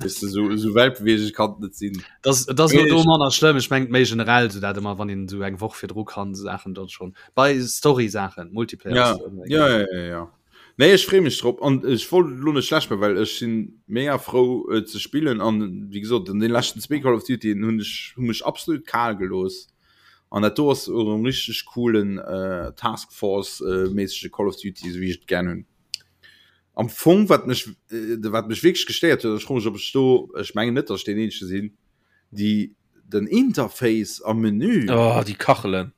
weess de, sou sou weltbewegend kann et net sinn. Das, das ass Mee do ech- manner schlëmm. Ech mengt méi generell sou dat ëmmer wann een sou eng Woch virdru kann Saachen dort schon bei Story Saachen Multiplayer Ja, ass ëmmer ja, egal. ja, ja, ja. Nee, ech freeë mech drop an ech wollt elo net schlecht maachen, well ech sinn mega frou et ze spillen an wéi gesot an den leschten zwee Call of Dutyen hunn ech hu mech absolut kal gelooss an dat do ass och e richteg coolen äh, Task Force äh, méissege Call of Duty, esou wéi ech et gär hunn. Am Fong wat mech äh, wat mech wierklech gestéiert huet, ech froe mech ob ech do, ech mengen net, datt ech deen eenzege sinn, déi den Interface am Menü Oh, déi Kachelen.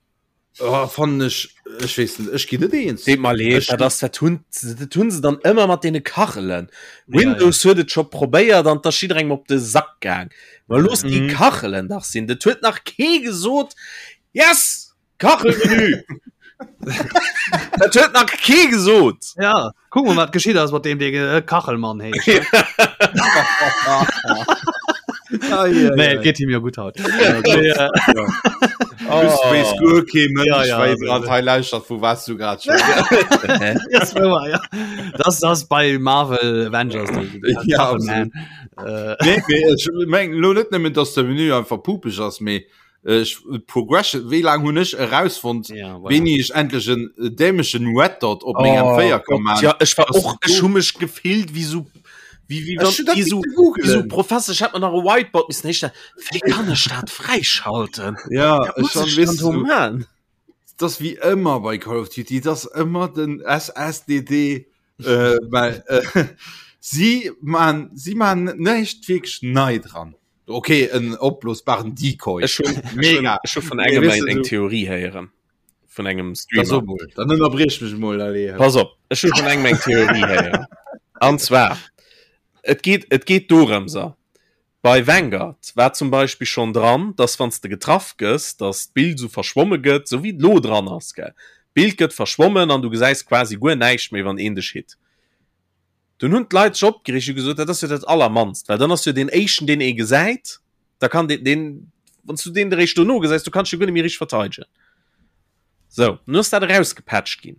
Oh, fannen ech, ech weess net, ech ginn net eens. Deet mer leed, Ech- dat ass, dat hunn, dat hunn se dann ëmmer mat deene Kachelen. Windows huet et scho probéiert an 't ass jidderengem op de Sack gaang. Ma looss déi Mhm. Kachelen dach sinn. Dat huet nach kee gesot, Yes! Kachelmenü! Dat huet nach kee gesot! Ja, kuck mol wat geschitt ass mat deem dee äh, Kachelmann heescht. Nee, et geet him jo gutt haut. Nee, äh, Oh. Wees guer kee Mënsch, Ja, ja, wéi also- grad hei lauschtert, vu was du grad schwätz. das war, ja. Das das bei Marvel Avengers. die- die Ja, Kachelman. Äh, Nee, mee ech mengen lo net nëmmen, dass de Menü einfach pupeg ass, mee ech Progression, wéi laang hunn ech erausfonnt, ja, voilà. wéini ech endlech en dämlechen Red Dot op mengem Oh 4 kann Gott, man. ja, ech war Das och ist ech hu mech gefillt wéi sou wéi wéi Ech hun dat wéi sou misste googlen. wéi sou Professor ech hätt mer nach e Whiteboard missen héichstellen wéi kann ech dat fräischalten Ja, Wat ech muss schon ech weess dann do du, man das wie ëmmer bei Call of Duty, das ëmmer den SSDD äh, well äh, si man si man näischt wierklech nei dran. Okay, en opblosbaren Decoy. Ech hun Mega. ech hu vun Nee, engem weess eng du, eng so- Theorie héieren vun engem Da Streamer so mol, dann ënnerbriech mech mol, allez. Pass op, ech hu vun engem eng Theorie héieren. An zwar, et geet, et geet dorëms, a bei Vanguard war zum Beispill schonn dran, dass wann s de getraff gëss, dass d'Bild esou verschwomme gëtt, esou wéi et lo dran ass, gell. D'Bild gëtt verschwommen an du gesäis quasi guer näischt méi, wann een dech hit. Dunn hunn d'Leit sech opgereegt, hu gesot, dat ass jo dat Allermannst, well dann ass jo deen éischten, deen ee gesäit, da kann deen, deen, wann s du deen eréischt dono gesäis, du kanns dech jo guer net méi richteg verteidegen. Sou, nun ass dat erausgepatcht ginn.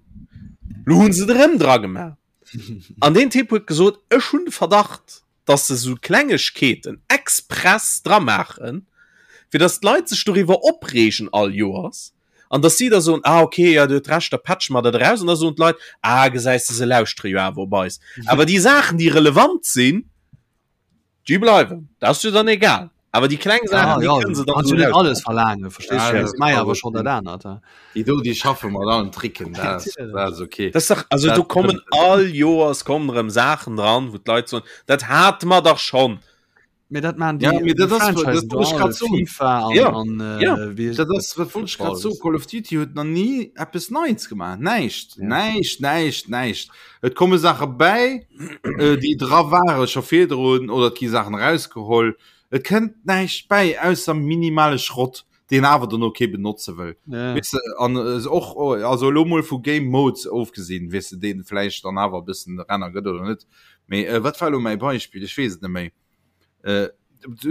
Lo hu se et erëm dra gemaach. An deen Typ huet gesot, ech hunn de Verdacht, dass se sou Klengegkeeten express dra maachen, fir dass d'Leit sech doriwwer opreegen all Joers. An dass si da soen, ah okay, ja Dir huet Recht, da patche mer dat eraus. An da soen d'Leit, ah gesäis de, se lauschtere jo awer op eis. Awer déi Saachen, déi relevant sinn, déi bleiwen. Dat ass jo dann egal. Awer déi kleng Saachen, déi kënne se dann Kannst du net alles verlaangen, verstees Ja, du? das Dat mei awer awer schon dat anert. ja. Déi do, déi schaffe mat allen Tricken, dat ass, dat ass okay. Das ist doch, also Dat do kommen all Joers kommen erëm Saachen dran, wou d'Leit soen, dat hate mer dach schonn. Mee dat maan Ja, déi mee dat déi ass- dat Franchisen wollt ech do grad all, soen. FIFA an, Ja, an äh, ja. wéi Dat ass, wat wollt ech grad soen, Call of Duty huet nach ni eppes Neits gemaach. Näischt, Ja. näischt, näischt, näischt. Et komme Saache bäi, äh, déi dra ware scho virdrun oder et gi Saachen erausgeholl. Et kënnt näischt bäi, ausser minimale Schrott, deen awer dono kee benotze wëll. Ja. Weess de, an äh, och, oh, also elo mol vu Game Modes ofgesinn, weess de, deen vläicht dann awer e bëssen Renner gëtt oder net. Mee äh, wat war elo mäi Beispill? Ech weess et net méi. Äh,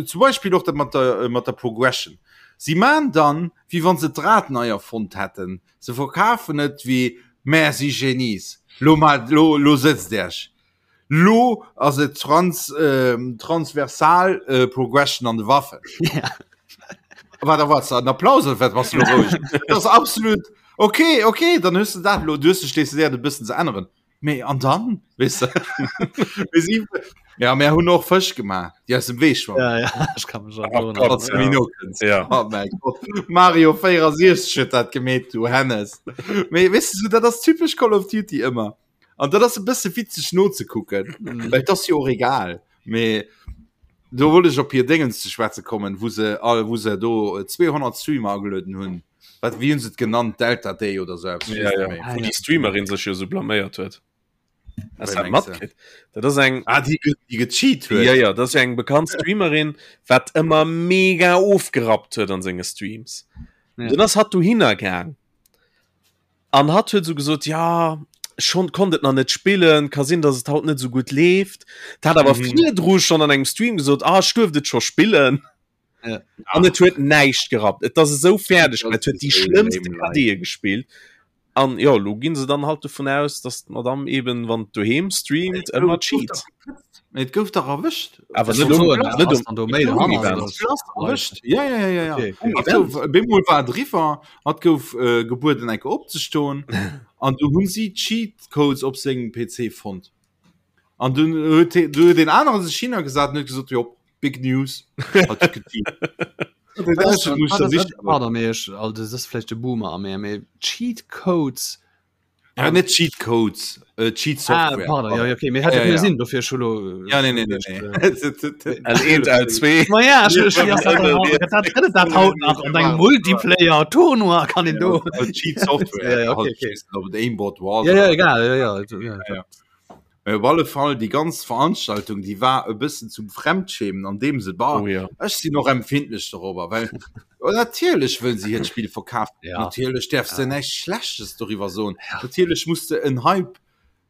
zum Beispill och dat mat der, äh, mat der Progression. Si maan dann, wéi wann se d'Rad nei erfonnt hätten. Se verkafen et wéi, Mär si Genies, lo ma, lo, lo sëtzt Iech. Lo ass et trans, äh, transversal äh, Progression an de Waffen. Ja. Wat erwarts du? En Applaus oder wat bass du lo roueg? Dat ass absolut okay, okay, dann hues du dat lo, du hues dech decidéiert e bëssen ze änneren. Mee an dann, weess de? Mir si, ja, mir hunn och Fësch gemaach, déi aus dem Wee schwammen. Ja, ja, ech kann mech Oh erënneren. Gott, Falls du ja. méi no kënns. Ja. Oh mäi Gott. Mario 64 huet dat gemeet, du Hennes. Mee weess du, dat ass typesch Call of Duty ëmmer. An dat ass e bësse witzeg nozekucken, Mhm. well dat ass jo och egal. Mee do wollt ech op hir Déngens ze schwätze kommen, wou se all, wou se do 200 Streamer agelueden hunn. Wat, wéi hunn se et genannt? Delta Day oder sou eppes, ech Ja, weess ja. net méi. Wou Ah, déi Streamerin sech jo sou blaméiert huet. Hast Wéi du dat mengs du? matkritt? Dat ass eng Ah, déi, ge- déi gecheat huet. Ja, ja, dat ass jo eng bekannt Streamerin, wat ëmmer mega ofgerappt huet an senge Streams. Ja. Dann ass hatt dohinner gaang. An hatt huet esou gesot, ja, schon konnt et nach net spillen, ka sinn, dass et haut net esou gutt leeft. Dat hat awer Mhm. virdru schon an engem Stream gesot, ah, ech duerft et scho spillen. Ja. An et huet näischt gerappt. Et ass esou fäerdeg, Das et huet déi ist so schlëmmste lame, like. KDe gespillt. An jo, lo ginn se dann halt dovun aus, dass d'Madame eben, wann doheem streamt, ëmmer cheat. Mee et gouf dach erwëscht. Awer Ech net wollt um, soen, net ass um, dann do méi net um dohannert, Event. oder ass das live? Erwëscht. Ja, ja, ja, ja, ja. Okay, okay. Hat gouf, bemol war et eriwwer, hat gouf äh, gebueden enke opzestoen an du hunn si Cheat Codes op sengem PC fonnt. An dunn huet he- du huet den anere sech hinnergesat an huet gesot, jo, big news. Hat huet gecheat. Wat ass Dat muss wat der ass- sicher Pardon, mee ech, also das ass vläicht de Boomer a mir, mee Cheat Codes Ja, net Cheat Codes, äh, Cheat Ah, Software. pardon, ja, okay, mir hätte Ja, ja, ja. sinn dofir schon lo, Ja, nee, nee, nee, nee. L1, L2. Ma ja, ich, ich, Ja, das, das, das, das haut nach an engem Multiplayer Tournoi kann den do. Cheat Software. Ja, ja, okay, okay. Ob et Aimbot war. Ja, ja, egal, ja, ja, ja, ja. Mee op alle Fall déi ganz Veranstaltung, déi war e bëssen zum Fremdschämen an deem se war. Oh, ja. Ech sinn och empfindlech dorobber, well oh, natierlech wëll si hiert Spill verkafen. Ja. Natierlech däerfs de näischt Schlechtes doriwwer soen. Natierlech muss de en Hype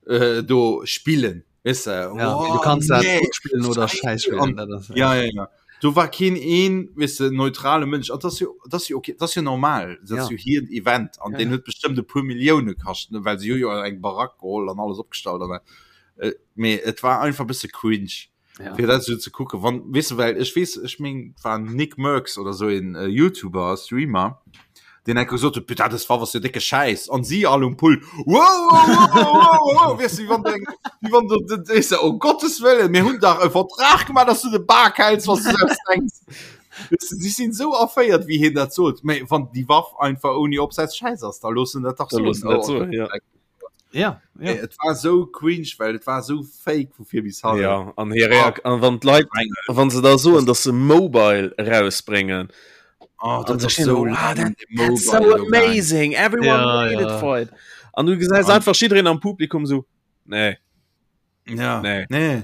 äh, do spillen. Weess de? Ja, Oh, du kannst dat nee. gut spielen oder scheiß spielen. Dat ass, Ja, ja, ja. Do war keen een, weess de, neutrale Mënsch. An dat ass jo, dat ass jo okay, dat ass jo normal. Dat ass Ja. jo hiert Event an Ja, deen ja. huet bestëmmt e puer Millioune kascht, ne, well si hu jo eng Barack geholl an alles opgestallt an äh, mee et war einfach e bësse cringe Ja. fir dat esou ze kucken. Wann, weess de, well ech weess, ech meng, et war Nick Mercs oder sou een äh, YouTuber, Streamer, deen enke gesot huet, putain, dës Waff ass jo décke Schäiss. An si all um Pult, wow, wow, wow, wow, wow, weess du, wéi wann du eng, wéi wann du, du, weess du, oh Gottes Wëllen, mir hunn dach e Vertrag gemaach, dass du de Bak häls, was du selbst denkst. Weess du, si sinn esou erféiert, wéi hien dat sot. Mä wann déi Waff einfach ouni Opsatz Schäiss ass, da looss en dat dach Da soen. looss en dat soen, ja. Ja, ja. Et war esou cringe, well et war esou fake vu vir bis hannen. Ja, an hir Reak an wann d'Leit, wann se da soen, dass se Mobile erausbréngen, Oh, an dat se ass stehen so do, ah, lang, that, de that's so Mobile do gaang. amazing, everyone Ja, waited ja. for it. An du gesäis An- einfach jiddereen am Publikum so, nee, Ja. Nee. Nee.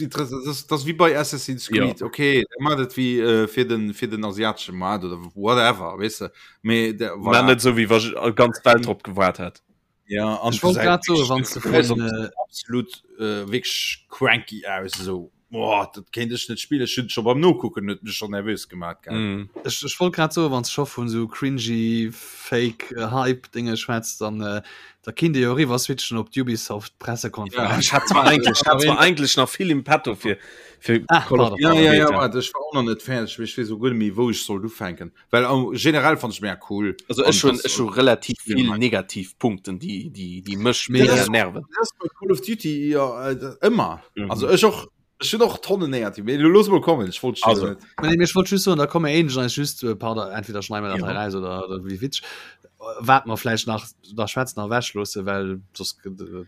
Das, das, das wie bei Assassin's Creed. Ja. Okay, der macht et wie äh, fir den fir den asiatesche Markt oder whatever, weißt du. Me, der, voilà. net so wie wa ganz Welt drop gewaart hat. Ja, an Ich wollt grad soen, wann du vun, äh, absolut äh, wirklich cranky aus so. Boah, dat kéint ech net spillen. Ech hunn scho beim Nokucken huet mech schon nervös gemaat gell. Mm. Ech, ech wollt grad soen, wann s scho vun sou cringy fake äh, Hype Dinge schwätzt, dann äh, da kinnt Dir jo eriwwer switchen op d'Ubisoft Pressekonferenz. Ja, ech hat zwar eigentlich, hat zwar eigentlich nach vill im Petto fir fir ah, Call of Ja, ja, ja, warte, ech war och nach net fäerdeg, mee ech weess och guer net méi wou ech sollt ufänken. Well am generell fand ech mega cool. Also ech hun ech hu relativ vill negativ Punkten déi déi déi mech mega nerven. Dat ass bei Call of Duty jo ëmmer. Mhm. Also ech och ech hunn och Tonnen negativ. Mee looss mol kommen, ech wollt also. net. Nee, mee ech wollt just soen, da komme éinescht eis just, äh, pardon, entweder schneiden wir dat hei raus oder, oder wéi witzeg, wat mer vläicht nach da schwätzen a ewech loosse, well soss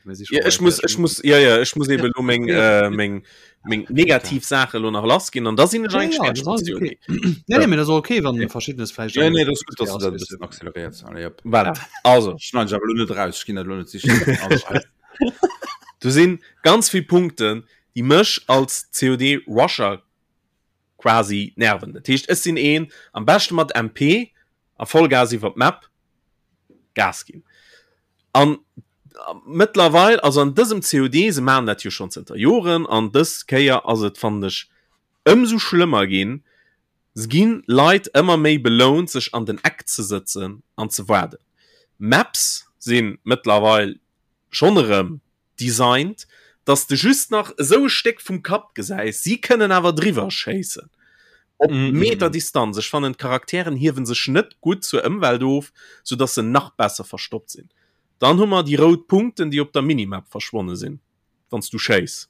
mir si Ja, ech muss ech muss ja ja ech muss eben lo meng äh, meng meng negativ Sache lo nach lass ginn an da sinn ech Ja, eigentlich ja, fertig das mat ist okay. COD. Nee, nee, mee das ass okay, wann verschiddenes vläicht Ja, nee, dat ass gutt, dass du dat e bëssen acceleréiers. Allez, hop. Voilà. Also Schneiden ech awer lo net raus, ech ginn dat lo net sichen. Also, do sinn ganz vill Punkten, déi mech als COD Rusher quasi nerven. Dat heescht ech sinn een am beschte mat MP a Vollgas iwwer d'Map Gas ginn. An mëttlerweil, also an dësem COD, se maachen dat jo schonn zënter Joren, an dës Kéier ass et fannen ech ëmsou schlëmmer ginn, se ginn Leit ëmmer méi belount sech an den Eck ze sëtzen an ze waarden. Maps sinn mëttlerweil schonn erëm designt, dass de just nach esou e Stéck vum Kapp gesäis, si kënnen awer driwwer schéissen op Meter Distanz. Ech fannen d'Charakteren hiewen sech net gutt zur Ëmwelt of, sou dass se nach besser verstoppt sinn. Dann hu mer déi rout Punkten, déi op der Minimap verschwonne sinn, wann s du schéiss.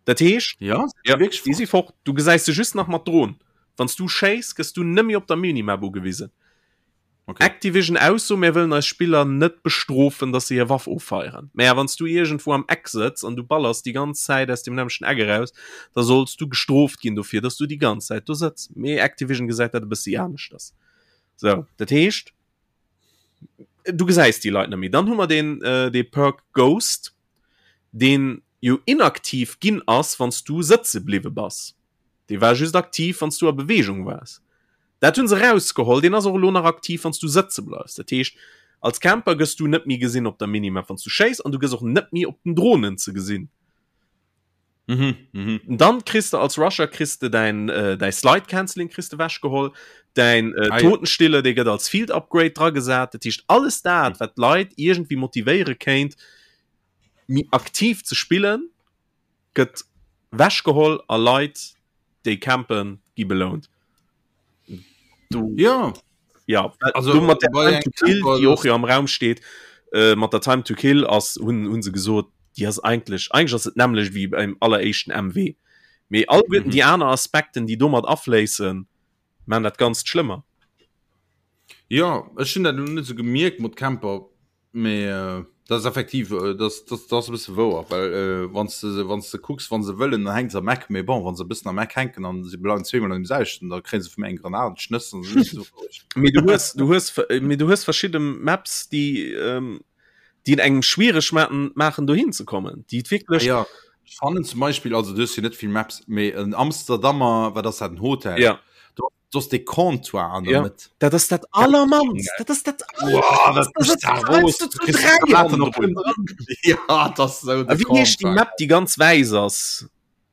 Dat heescht, Ja, ja, déi si fort, du gesäis se just nach mat Dron. Wann s du schéiss, gëss du nëmme op der Minimap ugewisen. Okay. Activision Ausso, Mir wëllen eis Spiller net bestrofen, dass se hir Waff offeieren. Mä wann s du iergendwou am Eck sëtz an du ballers déi ganz Zäit aus deem nämmlechten Eck eraus, da solls du gestrooft ginn dofir, dass du déi ganz Zäit do sëtz. Mee Activision gesäit dat e bëssi aneschters. Sou, dat heescht, du gesäis déi Leit net méi. Dann hu mer deen, dee Perk Ghost, deen jo inaktiv ginn ass, wann s du sëtze bliwwe bass. Dee war just aktiv, wann s du a Beweegung waars. Dat hunn se rausgeholl. Deen ass och elo nach aktiv, wann s du sëtze bleifs. Dat heescht, als Camper gëss du net méi gesinn op der Minimap, wann s du schéiss, an du gëss och net méi op den Dronen ze gesinn. Mhm, mhm. Dann kriss de als Rusher kriss de däin, äh, däi Slide Cancelling kriss de wechgeholl, däin äh, Ah, ja. Totenstille, dee gëtt als Field Upgrade dragesat. Dat heescht, alles dat, wat d'Leit iergendwéi motivéiere kéint, méi aktiv ze spillen, gëtt wechgeholl a Leit déi campen gi belount. Du, ja ja also du mat der bei Time to Kill, Camper, déi och jo am Raum steet äh, mat der Time to Kill ass hunn hunn se gesot, déi ass eigentlech eigentlech ass et nämmlecht wéi beim alleréischten MW. Mee alleguerten mhm. déi aner Aspekten, déi domat afléissen, man dat Ganzt schlëmmer. Ja ech hunn dat net sou gemierkt mat Camper Mee dat ass effektiv, dat ass e bësse wouer, well wann s de, wann s de kucks, wa se wëllen, dann hänke se am Eck. Mee bon, wa se e bëssen am Eck hänken an se bleiwen zweemol an deem selwechten, da kréie se vu mir eng Granat an d'Schnëss an se sinn roueg. Mee du hues, du hues, mee du hues verschidde Maps, déi, déi et engem schwiereg maachen, maachen dohin ze kommen, déi et wierklech. Jo, ech fannen zum Beispill, also du hues jo net vill Maps, mee en Amsterdamer, wat ass dat, en Hotel? Jo. Do Do ass dee Comptoir an der ja. Mëtt. Dat ass dat allermannst. Dat ass dat Ja, dat ass sou de Wéi heescht déi Map, déi ganz wäiss ass?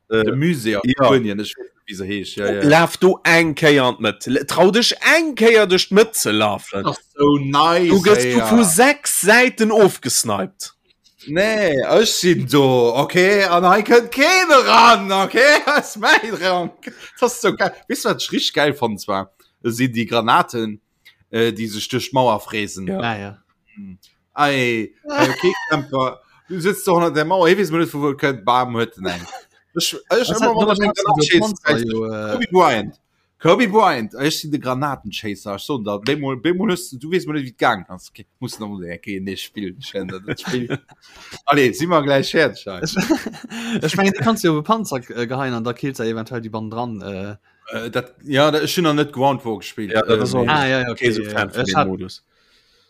Äh, de Musée a ja. Spuenien, ech weess net, wéi se heescht. Ja, ja. Laf do eng Kéier an d'Mëtt. Trau dech eng Kéier duerch d'Mëtt ze lafen. Dat ass sou nice. Du gëss du ja. vu 6 Säiten ofgesniped. Nee, ech sinn do, okay, an hei kënnt keen eran, okay, ass mäin Rank. Dat ass sou geil. Weess du, wat ech richteg geil fannen zwar? Sinn déi Granaten, äh, déi sech duerch d'Mauer fräsen. Ja. Ah, ja. Ei, ei, okay, Camper, du sitzt do hannert der Mauer, hie weess mol net, vu wou et kënnt, bam, huet en eng. Ech, ech ëmmer, wann ech eng Granat schéissen, Kobe Bryant. Kobe Bryant, ech sinn de Granatenchaser, ech soen der, bemol, bemol hues du, du weess mol net, wéi et gaangen ass. Okay, muss nach mol eng Kéier nees spillen, ech wäerten dat net spillen. Allez, si mer gläich fäerdeg hei. Ech mengen, déi kanns du jo op e Panzer äh, geheien an da killt se eventuell déi bannendran. Äh. Äh, dat, ja, dat, ech hunn nach net Ground War gespillt. Ja, dat ass Äh, och Ah, ja, ja, okay. kee sou ja, Fan ja. vun Ech deem hat, Modus.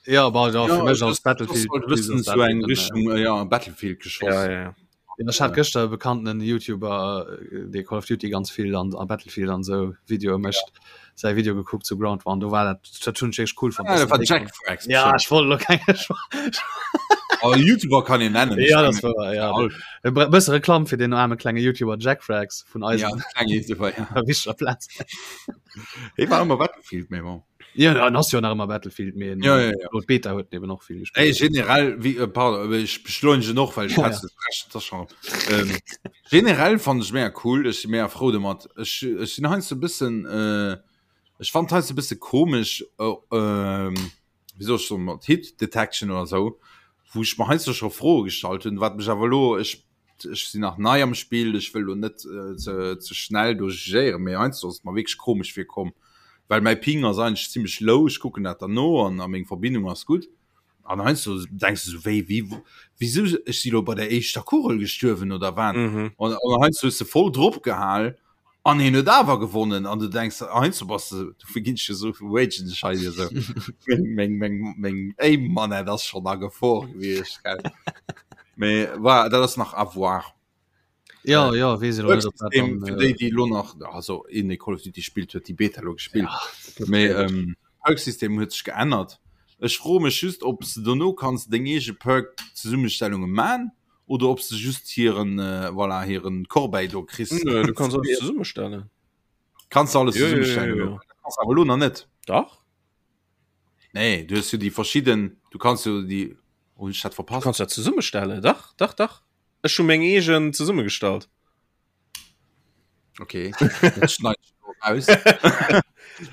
ja, bah, ja, ja, fir mech das, als das Battlefield. sollt e bëssen das so eng dat, äh, Richtung, äh, ja, Battlefield geschoss. Ja, ja, ja. Ech hat gëschter e bekannten Youtuber, dee Call of Duty ganz vill an a Battlefield an sou Videoe mécht, säi Video gekuckt zu Ground War an do war dat dat hunn ech wierklech cool fonnt. Ah, dass dat war den Jack Frags Ja, bestimmt. ech wollt elo keng. Oh, YouTuber kann een nennen. Ja, das war, ja. E bësse Reklamm fir den arme klenge YouTuber Jack Frags vun eisem ja, klenge YouTuber, ja. Wichtiger Platz. Hie war ëmmer Battlefield, mee bon. Ja, dann ass jo nach ëmmer Battlefield, mee ja, ja, ja. Beta huet eben och vill gespielt. Ey, generell, wie, äh, pardon, äh, ich beschleunige noch, well ich ja, ja. das schon. Ähm, generell fand ich mega cool, ech si mega frou domat. Ech, ech sinn heiansdo e bëssen, äh, ech fand heiansdo e bësse komesch, äh, ähm, wéi soll ech soen, mat Hit Detection oder sou, wou ech mer heiansdo scho Froe gestallt hunn, wat mech awer elo, ech, ech sinn nach nei am Spill, ech wëll elo net äh, ze, ze schnell do jugéieren, mee heiansdo ass et mer wierklech komesch virkomm, well mäi Ping ass eigentlech zimmlech low, ech kucken dat dann no an a meng Verbindung ass gutt. An heiansdo denks du sou, wéi, wéi, wisou, ech si lo bei der éischter Kugel gestuerwen oder wat? Mhm. An, an heiansdo hues de voll drop gehal an hien huet awer gewonnen an du denks, heiansdo bass de, dofir ginn ech jo sou ragen ech hei esou. Meng, meng, meng, meng Aim-Manette ass schonn a Gefor gewiescht, gell. Mee voilà, dat ass nach à voir. Ja, ja, wees ich net, ob dat dann, Fir äh, déi, déi lo nach, also een, dee Call of Duty spillt, huet déi Beta lo gespillt. Ja, Mee ähm, Perk-System huet sech geännert. Ech froe mech just, ob s de dono kanns deng eege Perk-Zesummestellunge man oder ob s de just hiren, äh, voilà, hiren Corbeil do kriss. Nö, du kanns alles zesummestellen. Kanns du alles Jo, jo, jo, zesummestellen? jo. Kanns awer lo nach net. Dach. Nee, du hues jo déi verschidden, du kanns jo déi, hunn ech dat Du verpasst? kanns dat zesummestellen. Dach, dach, dach. Ech hu meng eegen zesummegestallt. Okay, dat schneid ich lo raus.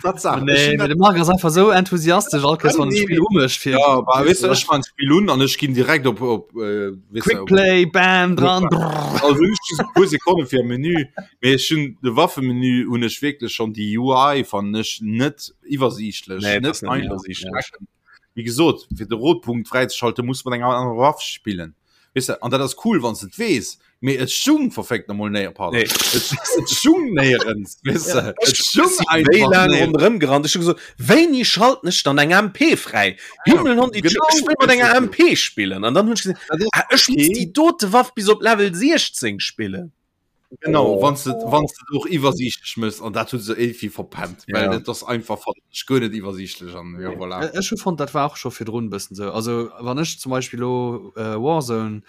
Tatsache, Nee, ech de Marc ass einfach sou enthusiastesch all Kéiers wann e Spill umécht fir Ja, bah, weißt du, ech man Spiel un an ech ginn direkt op op äh, weißt du, Quick Play, bam, dran. brrr. Also ech just e puer Sekonne fir am Menü, mee ech hunn de Waffemenü hunn ech wierklech schon déi UI fannen ech net iwwersiichtlech, Nee, net das net einfach iwwersiichtlech. ze checken. Wéi gesot, fir de Rotpunkt fräizeschalten, muss mat enger anerer Waff spillen. Weess de, an dat ass cool, wann s de et weess, mee et stung verféckt nomol néier, pardon, Nee. et, et stung néierens, weess de, et stung Wéi einfach laang néierens. ronderëm gerannt. Ech hu gesot, wéini schalten ech dann eng MP fräi? Himmel, Hond, Genau, ech wëll mat enger MP spillen. An dann hunn ech gesinn, Dat ass ah, ech muss okay. déi dote Waff bis op Level 16 spillen. Genau, Oh. wann du wann du och iwwersiichtlech mëss an dat hu se irgendwie verpennt, well Ja. dat ass einfach fand ech guer net iwwersiichtlech an ja, voilà. Äh, Ech hu fonnt dat war och scho virdrun e bëssen sou. Also wann ech zum Beispill lo äh, Warzone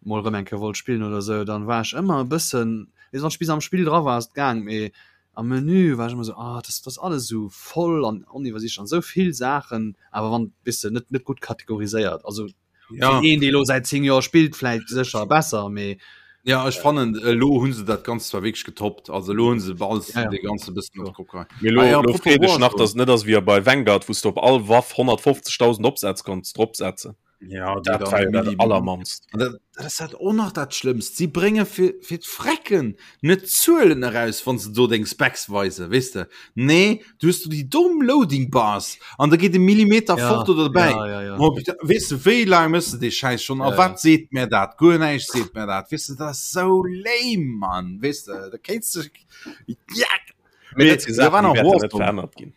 mol rëm eng Kéier wollt spillen oder sou, dann war ech ëmmer e bëssen, weess wann ech bis am Spill dra war ass et gaang, mee am Menü war ech ëmmer sou, ah dat ass alles sou voll an oniwwersiichtlech an sou vill Saachen, awer wann weess de net net gutt kategoriséiert. Also Ja. Fir een, dee lo säit 10 Joer spillt, vläicht sécher besser, mee Ja, ech fannen elo hunn se dat Ganzt zwar wierklech getoppt, also elo hunn se alles Ja, ja. de ganze bëssen op d'Kopp geheit. Mee lo, Ah ja, lo apropos freet ech nach, Warzone. dass et net ass wéi bei Vanguard, wou s de op all Waff 150.000 Opsätz konns dropsetzen. Ja, déi Dat dann war jo dat Milli- Allermannst. An dat, dat ass dat och nach dat Schlëmmst. Si brénge fir, fir d'Frecken net Zuelen eraus, wann se do deng Specs weisen, weess de. Nee, du hues du déi domm Loading Bars an da geet e Millimeter Ja, fort oder dobäi. ja, ja, ja. Oh, bitte, weess de, wéi laang mëss de dee Schäiss schon? A Ja, wat seet mär dat? Guer näischt seet mär dat. Weess de, dat ass sou lame, Mann. Weess de, da kéints de, ja. Mee Mee dat si da war Saachen, déi nach wäerten net Warzone. verännert ginn.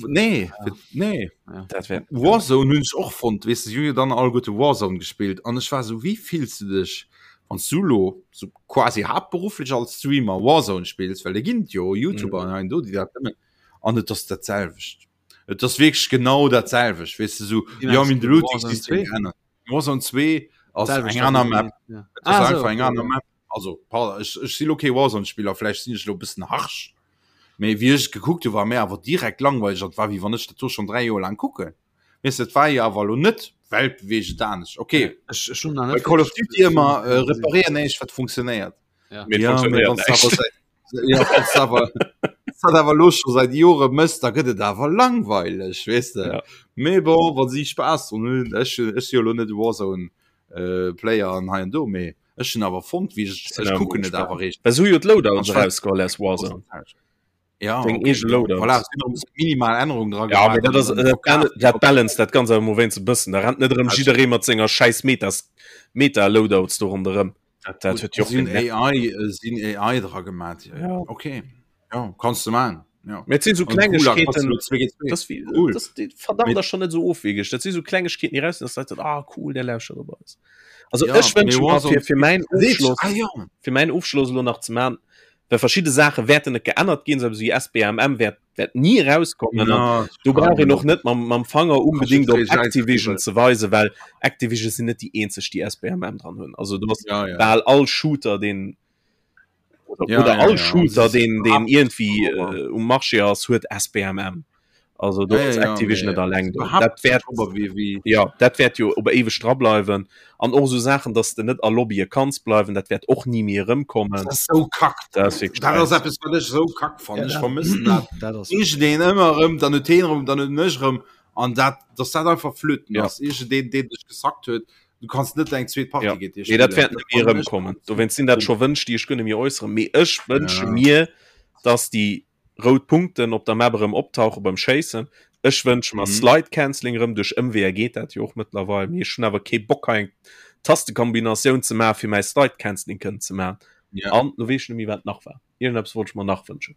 Nee, nee. Ja. Dat wär Warzone hunn ech och fonnt, weess de, si hu jo dann alleguerte Warzone gespillt an ech war sou, wéi fills de dech, wann s du lo sou quasi haaptberufflech als Streamer Warzone spills, well et ginn jo YouTuber an hei an do, déi dat nëmmen, an et ass dat selwecht. Et ass wierklech genau dat selwecht, weess de, sou, Wéi jo, mengst mir hunn du, de Looting Warzone System 2? geännert. Warzone 2 ass Selwecht eng aner wéi- Map, ja. et ass Ah, einfach sou, eng okay, aner ja. Map. Also, pardon, ech, ech si lo kee Warzone-Spiller, vläicht sinn ech lo e bëssen harsch, mee wéi ech et gekuckt hu war mir awer direkt langweileg an et war wéi wann ech dat do schonn 3 Joer laang kucken. Weess de, et war jo awer elo net weltbeweegend anescht. Okay, Ech, ech hunn nach bei net Call of wirklich Duty ëmmer äh, gesinn. reparéier näischt wat funktionéiert. Ja. Mee et Ja, mee funktionéiert wann s du awer näischt. säit ja, wann s du awer wann s dat awer elo scho säit Jore mëss, da gëtt et awer langweileg, weess de. Ja. Mee bon, wa si Spaass drun hunn, ech ech si jo elo net e Warzone äh, Player an hei an do, mee ech hunn awer fonnt wéi ech Sinn ech awer kucken mol et awer gespaant. réischt. Well se hu jo d'Loadouts An ech war erausgeholl aus Warzone. Ja, Deng okay, eege ja, Loadouts. voilà, es sinn och minimal Ännerungen dra Ja, mee gemaach dat ass an dann dat, verkaf. dat balance dat ganz awer mol wéinst e bëssen. Da rennt net erëm jidderee mat senger schäiss Metas Meta-Loadouts do ronderëm. Dat, dat huet jo och Si hunn genervt. AI, äh, si hunn AI dra gemaat. Ja. Ja. Okay. Ja, kanns du maachen. Ja. Mee et sinn sou An Gulag kanns du Klengegkeeten, lo 2 géint 2. das wie, Cool. das, déi verdammt Mee ass schon net sou ofwegeg. Dat si sou Klengegkeeten, déi raus sinn, dass d'Leit soen, ah cool, der lauschtert op eis. Also Ja, ech mee wënsche mer Warzone fir, fir mäin Seet, Ofschloss, ah ja. fir mäin Ofschloss elo nach ze man. Well verschidde Saache wäerten net geännert ginn, sou wéi SBMM wäert wäert ni erauskommen. Ja, do brauch een och net mam, mam Fanger unbedingt op Activision ze weisen, well Activision sinn net déi eenzeg, déi SBMM dran hunn. Also du hast ja, ja. bal all Shooter, den oder, ja, oder ja, all ja, Shooter, den den irgendwie äh, um Marché ass, huet SBMM. Also do ja, ja, Activision net alleng do. Dat wäert wie, wie. Ja, dat wäert jo op éiweg dra bleiwen. An och sou Saachen, dass de net a Lobbye kanns bleiwen, dat wäert och ni méi erëmkommen. Dat ass sou kack. Dat ass wierklech Dat ass eppes, wat ech sou kack fannen. Ech vermëssen dat. Dat ass. Iergendeen ëmmer erëm, dann huet heen erëm, dann hunn ech erëm. An dat, dass dat einfach flöten Ja. ass. Iergendeen, deen dech gesackt huet, du kanns net eng zweet Partie Ja. géint dee Nee, dat spillen. wäert net méi fannen ech erëmkommen. Dowéinst sinn dat scho Wënsch, déi ech guer net méi äusseren. Mee ech wënsche Ja. mir, dass déi rout Punkten op der Map erëm optauche beim Schéissen. Ech wënsche mer mhm. Slide Canceling erëm duerch Ëmweeër geet dat jo och mëttlerweil. Mee ech hunn awer kee Bock hei eng Tastekombinatioun ze maachen, fir mäi Slide Canceling kënnen ze maachen. Ja. An lo weess ech net méi wat nach war. Iergendeppes wollt ech mer nach wënschen.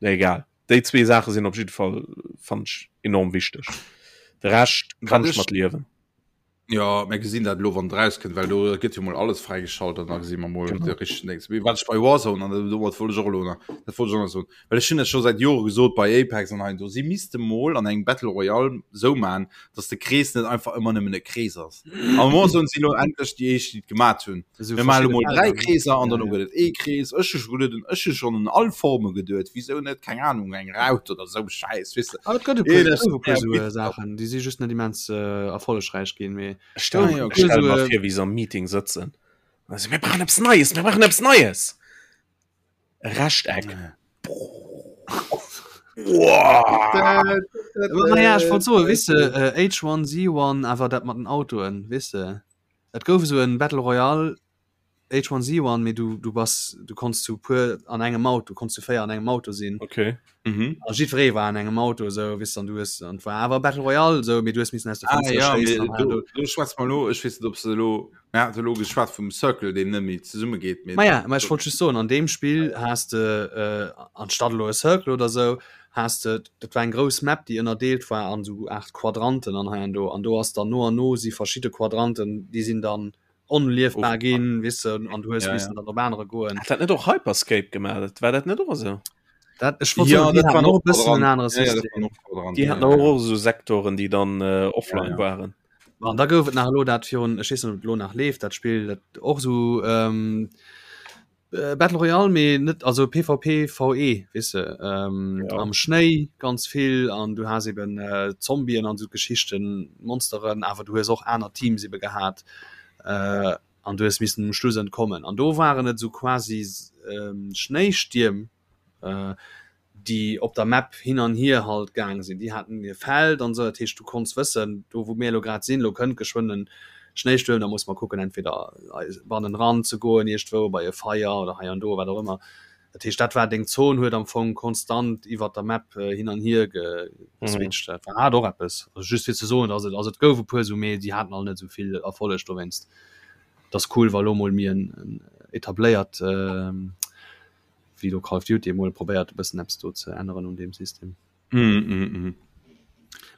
Nee, egal. Déi zwee Saache sinn op jidde Fall fand ech enorm wichteg. De Rescht kann ech mat liewen. Ja mir gesinn dat lo wann rauskënnt, well do gëtt jo mol alles fräigeschalt an da gesi mer mol de richtegen Dings. Mee wat ech bei Warzone an domat wollt ech och elo nach, dat wollt ech och nach soen, well ech hunn dat scho säit Jore gesot bei Apex an hei an do, si misste mol an engem Battle Royale sou man, datt de Krees net einfach ëmmer nëmmen e Krees ass. An Warzone si lo endlech déi éischt, déi et gemat hunn. Esou Mir maache lo verschidde mol 3 Felder, ne? Kreeser an Ja, derno ja. gëtt et ee Krees. Ech hu scho geduet, ech hu schonn un all Forme geduet, wisou net, keng Anung, eng Raut oder sou Schäiss, weess de. Ah, et gëtt e puer, et gouf e puer esou Saachen, déi si just net immens erfollegräich ginn, mee Ech stelle Ah, ja, ech stelle mer esou, vir, wéi se am Meeting sëtzen. Also, mir brauchen eppes Neies, mir brauchen eppes Neies! E Rechteck. Naja, ech wollt soen, weess de, H1Z1, awer dat mat den Autoen, weess de, et gouf esou en Battle Royale H1Z1, mee du, du bass, du konns zu puer an engem Auto, konns zu 4 an engem Auto sinn. Okay. Mhm. A jiddweree war an engem Auto, esou, weess de, an du hues, an et war awer Battle Royale, esou, mee du hues missen aus de Ah, Fënster ja, schéissen mee an hei an do, do. do schwätze mer elo, ech weess net, ob se elo, mir hate elo geschwat vum Circle, deen net méi zesumme geet, mee. Maja, mä ech wollt just soen, an deem Spill has de, äh, anstatt elo e Circle oder esou, has de, dat war eng grouss Map, déi ënnerdeelt war an esou Aart Quadranten an hei an do, an do ass dann no an no si verschidde Quadranten, déi sinn dann onliefbar ginn, weess de, an du hues Ja, missen ja. dann op anere goen. Hat dat net och Hyperscape gemaach? Dat war dat net och esou? Dat, ech wollt Ja, soen, déi dat haten waren och och e bëssen en Quadranten. anere Ja, ja, dat System. waren och Quadranten. Déi Ja, haten ja, och ja. och esou Sektoren, déi dann äh, offline Ja, ja. waren. An da gouf et nach elo dat virun, ech weess net, ob et elo nach leeft, dat Spill, dat och esou ähm, äh, Battle Royale, mee net, also PvP VE, weess de, ähm, Ja. am Schnéi ganz vill an du has eben äh, Zombien an esou Geschichten, Monsteren, awer du hues och aner Teams ebe gehat äh, an du hues missen um Schluss entkommen. An do waren et esou quasi ähm, Schnéistierm, äh, déi op der Map hin an hier halt gaang sinn. Déi haten hir Feld an esou, dat heescht du konns wëssen, do wou mir elo grad sinn, elo kënnt geschwënn en Schnéistuerm, da musse mer kucken entweder bannenran ze goen iergendwou bei e Feier oder hei an do, wat och ëmmer. Dat heescht dat war deng Zon, huet am Fong konstant iwwert der Map hin an hier geswitcht. Dat war hat och eppes. Also just fir ze soen, dass et, also et gouf e puer esou, mee déi haten all net esou vill Erfolleg dowéinst. Et ass cool wa lo mol méi en etabléiert wéi do Call of Duty emol probéiert e bëssen eppes do ze änneren un deem System. Mm, mm, mm.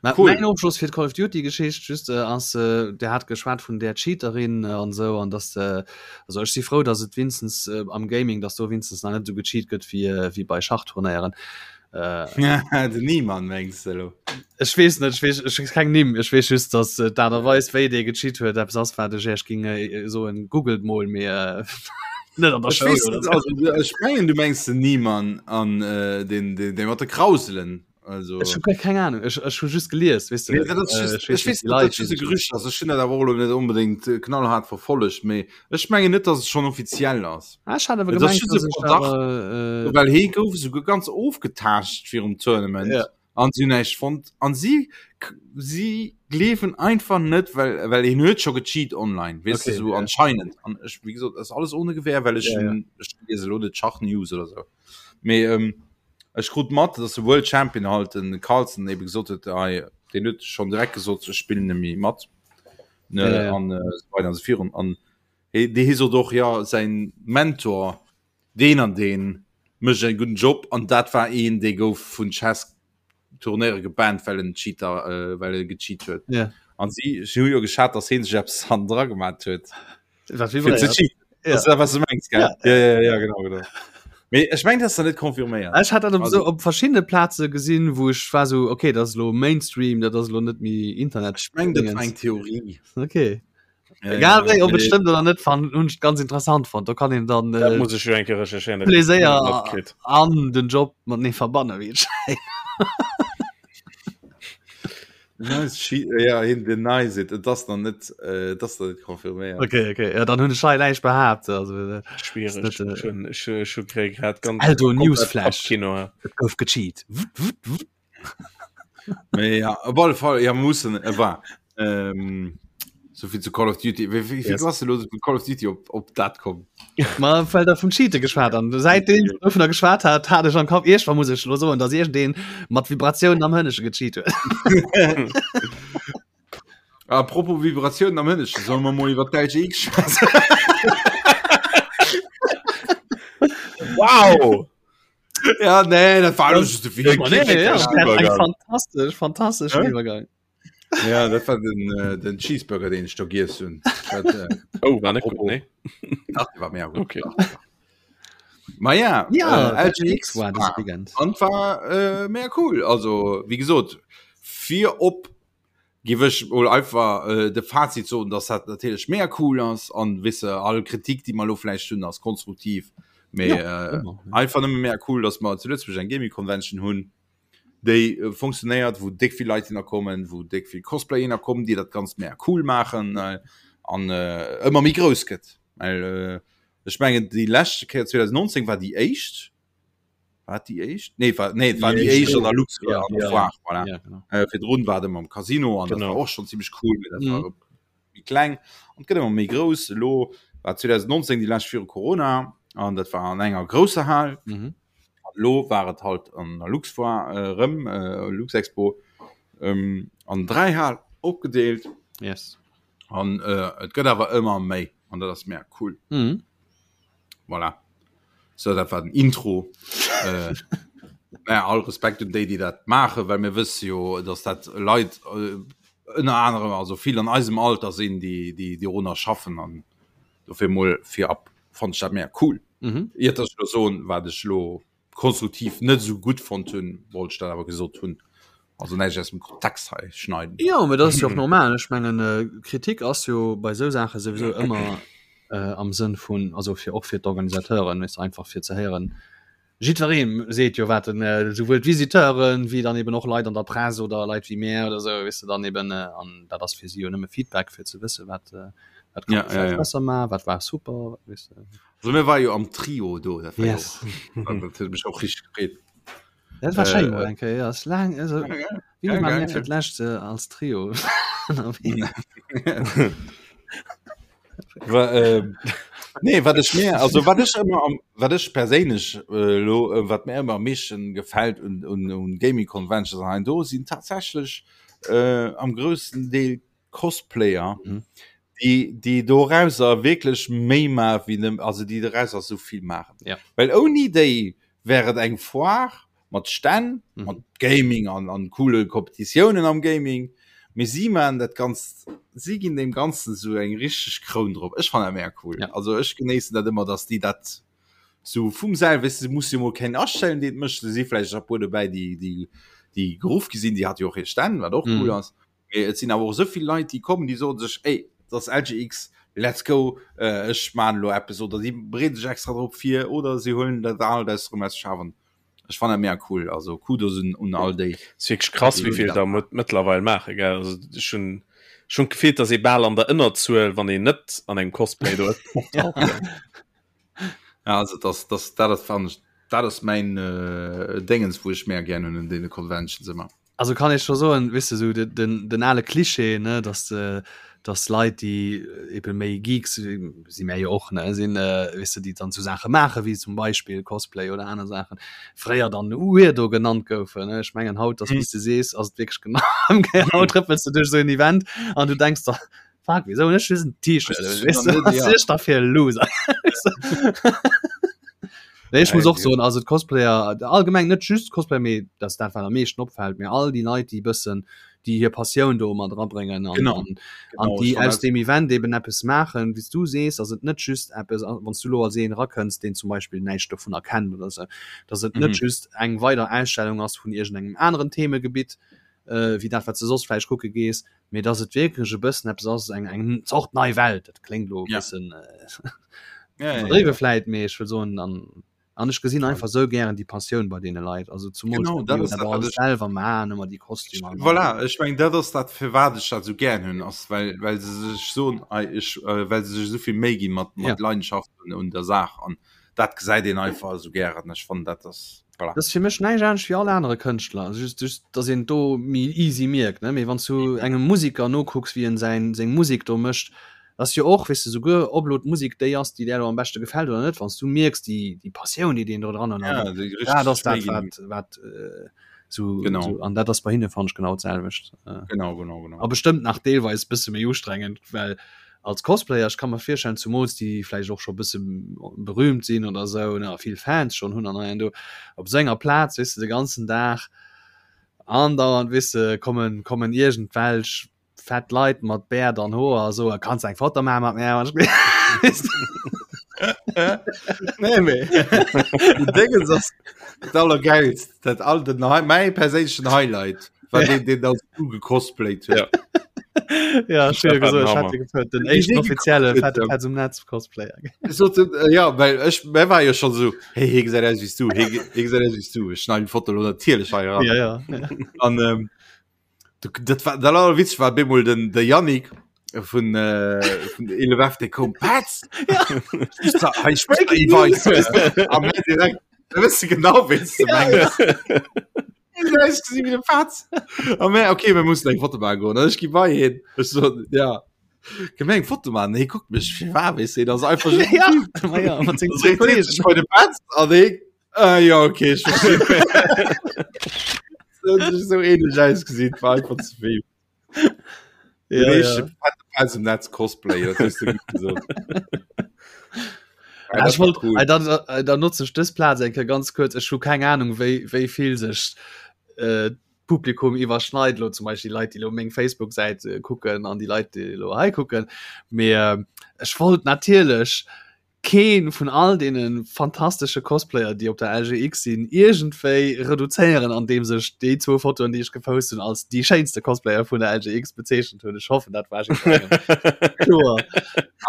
Ma, Cool. Mäin Ofschloss fir d'Call of Duty Geschicht just äh, ass äh, der hat geschwat vun der Cheaterin äh, an sou an dass äh, also ech si frou, dass et winstens äh, am Gaming, dass do winstens nach net sou gecheat gëtt wéi äh, wéi bei Schachturnéieren. Äh, Den Niemann mengst du lo? Ech weess net, ech weess, ech weess keng Nimm, ech weess just, dass äh, d'Aart a Weis, wéi dee gecheat huet, eppes ass, wat ech Iech ging äh, soen, googelt mol, mee äh, net an der Ech Schoul weess oder net, sou. also, ech mengen du mengs den Niemann an äh, den, den, den mat de Krauselen. Also Ech hu guer keng Ahnung, ech, ech hu just gelies, weess de, Nee, dat ass äh, just, ech weess ech net weess déi net, dat Leit, just déi e sech Gerücht ass. Ech hunn dat awer och elo net unbedéngt äh, knallhart verfollegt, mee ech mengen net, dass et schonn offiziell ass. Ah, ech hat awer Et ass gemengt, just dass e ech Verdacht, awer äh, well hee gouf esouguer ganz ofgetaascht virum Tournament. Ja. An si hunn näischt fonnt. An si, si gleewen einfach net, well, well hien huet scho gecheat online, weess de, Okay, sou ja. anscheinend. An ech, wéi gesot, ass alles ohne Gewähr, well ech, Ja, ja. ech liese elo net Schach-News oder sou. Mee ähm, ech krut mat, dass de World Champion halt, den Carlsen, ebe gesot huet, hei, deen huet schonn direkt gesot, ech spillen net méi mat, ne, Ja, ja. an äh, sou weider an sou virun. An hie, dee hie sot och, jo, säin Mentor, Deen an deen mécht en gudden Job an dat war een dee gouf vun Chess Turnéiere gebannt well en Cheater well e gecheat huet. Ja. An si si hu jo geschat dass heen sech eppes hannendra gemat huet Wat fir ze vibréiert. cheaten. Ja. Ass dat wat du mengs gell? Ja. Ja ja ja genau genau. Mee ech meng dat ass net confirméiert. Ech hat dat op, so, op verschiedene Plaze gesinn, wou ech war so okay, dat ass lo Mainstream, dat ass lo net méi Internet. Ech meng dat war eng Theorie. Okay. Ja, Egal wéi, ob et stëmmt oder net, fan hunn ech ganz interessant fonnt. Do kann een dann Dat muss ech jo eng Kéier recherchéieren. dat Pleséier hab ich net matkritt. an den Job matenee verbanne wéi et schéngt. Nice, she, ja, hien denies it. Et ass nach net, äh, et ass nach net confirméiert. Okay, okay. Ja, dann hunn ech hei näischt behaapt. Also, äh, Schwierig. Ist net, äh, Ech hunn- ech ech hu grad grad ganz Eldo komplett Newsflash. Kino. ja. et gouf gecheat. Wut, wut, wut. Mee ja, op alle Fall, ja, mussen, äh, war. Ähm, so viel zu Call of Duty. Wéi, wéi, wéi Yes. ass du lo vun Call of Duty op, op dat komm? Ma well der vum Cheate geschwat an säitdeem ich dovunner geschwat hat, hat ech am Kapp iergendwann muss ech lo soen, dass iergendeen mat Vibratiounen am Hënnesche gecheat huet. Apropos Vibratiounen am Hënnesche, solle mer mol iwwer d'LGX schwätzen? Wow! Ja, nee, dat war just de Nee, nee, ja, Übergang. fantastisch, fantastisch Hä? Iwwergang. Ja, dat war den, äh, den Cheeseburger, den ich do giess hunn. Dat, äh, Oh, war net gut, Apropos. nee? Ach, war mega gut. Okay. Ma ja, Ja, äh, LGX war das Weekend. an war äh, mega cool. Also, wie gesot, fir op giff ech mol einfach äh, de Fazit soen, dass dat natierlech mega cool ass an wisse all Kritik, déi mer lo vläicht hunn, ass konstruktiv. Mee Ja, äh, ëmmer, ja. einfach nëmme mega cool, dass mer zu Lëtzebuerg eng Gaming Convention hunn. déi äh, funktionéiert, wou déck vill Leit hinner kommen, wou déck vill Cosplayer hinner kommen, déi dat ganz mega cool maachen äh, an äh, ëmmer méi grouss gëtt. Well äh, ech mengen déi leschte Kéier 2019 war déi éischt war déi éischt? Nee, war, nee, war déi éischt an der Lux Ja, an der ja, Foire, voilà. Ja, genau. Äh, virdrun war et ëmmer am Casino an dat Genau. war och schon ziemlich cool, mee dat Mhm. war méi kleng an gëtt ëmmer méi grouss. Elo war 2019 déi lescht viru Corona an dat war an enger grousser Hal. Mhm. Lo war et halt an der Luxfoire äh, rëm äh, Luxexpo ähm, an dräi Hal opgedeelt Yes. an äh, et gëtt awer ëmmer méi an dat ass mega cool. Mhm. Voilà. So dat war den Intro. äh, naja, all Respekt un déi, déi dat maachen, well mir wësse jo, dass dat Leit äh, ënner anerem also vill an eisem Alter sinn, déi déi déi runner schaffen an dofir mol virab fand ech dat mega cool. Mhm. Iert dass ech lo soen, wat ech lo konstruktiv net esou gutt fonnt hunn, wollt ech dat awer gesot hunn. Also näischt aus dem Kontext hei schneiden. Jo, mee dat ass jo och normal. Ech mengen, äh, Kritik ass jo bei esou Saache souwisou ëmmer äh, am Sënn vun, also fir och fir d'Organisateuren, weess de, einfach fir ze héieren, jiddweree seet jo wat en, äh, souwuel d'Visiteuren wéi dann eben och Leit an der Press oder Leit wéi mär oder esou, weess de, dann eben, äh, an dat ass fir si jo nëmme Feedback, fir ze wësse wat, äh, wat kann Ja, ee ja, vläicht ja. besser maachen, wat war super, weess de. Also mir war jo am Trio do, dat war Yes. jo, dat huet mech och richtig gefreet. Dat war schéin Äh, mol eng Kéier, ja, ass laang, also, Ja, geil. wéi Ja, war geil, mir fir ja. d'lescht äh, als Trio ënnerwee? Wa, äh, nee, wat ech mir, also wat ech ëmmer am, wat ech perséinlech äh, lo, äh, wat mir ëmmer am meeschten gefält un, un, un Gaming Conventions an hei do sinn tatsächlech äh, am groussen Deel Cosplayer, Mhm. déi, déi dorauser wierklech méi maachen, wéi nëmmen, also déi dorauser sou vill maachen. Ja. Well ouni déi wär et eng Foire mat Stänn, Mhm. mat Gaming an, an coole Kompetitiounen am Gaming, mee si maachen dat Ganzt, si ginn deem Ganzen sou eng richteg Kroun drop. Ech fannen dat mega cool. Ja. Also ech genéissen dat ëmmer, dass déi dat sou vum selwen, weess de, se muss jo mol keen astellen, deen et mécht, do si vläicht e puer dobäi, déi, déi, déi geruff gi sinn, déi hat jo och hir Stänn, wat och cool Mhm. ass. Mee et sinn awer och esou vill Leit, déi kommen, déi soen sech, ey, dat ass LGX, let's go, äh, ech maan elo eppes oder si bereeden sech extra drop vir oder si huelen dat alt aus erëm aus Schafen. Ech fannen dat mega cool, also Kudos un, un all déi. Ass wierklech krass, wéi vill der mëttlerweil maache, gell? Also ech hunn schonn d'Gefill, dass ee bal an der Ënnerzuel, wann een net an engem Cosplay do optaucht. Ja, also das, das, dat ass, fannen ech, dat ass mäin äh, Déngens, wou ech mega gär hunn un deene Conventions ëmmer. Also kann ech scho soen, weess de, sou de, den, den ale Klischee, ne, dass de, dass Leit, déi eben méi Geeks, si mär jo och, ne, sinn, weess de, déi dann sou Saache maache wéi zum Beispill Cosplay oder aner Saachen, fréier dann Weirdo genannt goufen, ne. Ech mengen haut, ass, wéi s de sees, ass et wierklech genau ëmgéiert. Haut trëppels de duerch esou en Event an du denks der, Fuck, wieso hunn ech just en T-Shirt un, weess de, wat sinn ech da fir e Loser, weess de. Nee, ech muss och soen, also d'Cosplayer allgemeng, net just Cosplayer, mee dat ass dat wat am meeschten opfält, mee all déi Leit déi e bëssen déi hir Passioun do mat erabréngen an, Genau. an, an Genau, déi ech fann aus dat- deem Event eben eppes maachen, wéi s du sees, ass et net just eppes, wann s du elo als een erakënns, deen zum Beispill näischt dovunner kennt oder sou, dass et net Mhm. just eng weider Ausstellung ass vun iergendengem aneren Themegebitt, äh, wéi dat wat s de soss vläicht kucke gees, mee dass et wierklech e bëssen eppes ass, eng, eng Zort nei Welt. Dat kléngt elo e Ja. bëssen äh, Ja, ja, ja. iwwerdriwwe vläit, mee ech wëll soen, an An ech gesinn einfach sou gären déi Passioun bei deene Leit, also zumools Genau, déi dat jo ass dat dat, wat alles ech selwer maachen, ëmmer déi Kostümer an Voilà, ech mengen dat ass dat firwat ech dat sou gären hunn, ass well well se sech soen, ei ech well se sech esou vill Méi gi mat Ja. mat Leidenschaft un un der Saach an dat gesäit een einfach esou gären. Ech fannen dat ass voilà. Dat ass fir mech näischt anescht wéi all anere Kënschtler, just just dass een et do méi easy mierkt, ne, mee wann s du engem Musiker nokucks wéi en säin seng Musek do mécht, Ass jo och, weess de, souguer ob elo d'Musek déi ass, déi där elo am beschte gefält oder net, wann s du mierks, déi, déi Passioun, déi deen do dran huet, Ja, déi dat richtig ass dat, Méi ginn. wat, wat äh, sou, Genau. sou, an dat ass bei hinne, fannen ech, genau d'selwecht. Äh, Genau, genau, genau. a bestëmmt nach deelweis bësse méi ustrengend, well als Cosplayer, ech ka mer virstellen, zumools déi vläicht och scho bësse berühmt sinn oder sou, ne, a vill Fans schonn hunn an hei an do, op esou enger Plaz, weess de, de ganzen Dag andauernd, weess de, kommen, kommen iergendwelch Fett Leit mat Bäert an Hoer a so, kanns eng Foto maache mat mir? Nee, mee Dingens ass dat allergeilst, dat all den mäi perséinlechen Highlight war deen, deen als du gecosplayt huet. Ja. Ja, schön Dat war den gesot, ech Hammer. hat gefëllt, den Wéi éischten dee offizielle gekuckt fette huet, Petz um Netz Cosplayer. Ech sot, äh, ja, well ech mä war jo schon so, hey, hie gesäit aus wéi s du, hie ge- hie gesäit aus wéi s du. Ech schneiden d'Foto lo natierlech hei eran. Ja, ja. ja. An ähm, Du, dat war dat allerwitzeg war bemol den de Yannick vun äh, vun 11F dee koum Petz Ja. Ich sag, hei spricht Breaking der Iweiss. News. Am Ende direkt da wëss du genau wéi du Ja, mengs. Ja, wie de Petz. A mé okay mir mussen eng Foto maachen goen. An ech gi bei hien. Ech so ja Kënne mir eng Foto maachen? Hie kuckt mech fir war weess de, dat ass einfach just Ja, ma ja, mat sengen Dann zwou dreet hie Kollegen. sech bei de Petz an hie Ah, ja okay ich verstehe. so ähnlich ausgesehen war einfach zu viel Ja, ja. ja. im Netz Cosplay das hast du gut gesagt. Ja, Ja, ich das war wollt, cool. äh, dann, äh, dann nutze ich dës Plaz eng Kéier ganz kurz. Ech hu keng Ahnung, wéi, wéi vill sech äh, Publikum iwwerschneit lo zum Beispiel die Leit, déi lo meng Facebook-Säit äh, kucken an die Leit, déi lo hei kucken. Mee äh, ech wollt natierlech keen vun all deenen fantastesche Cosplayer déi op der LGX sinn iergendwéi reduzéieren andeems ech déi zwou Fotoen déi ech gepost hunn als déi schéinste Cosplayer vun der LGX bezeechent hunn. Ech hoffen dat war jiddwerengem kloer.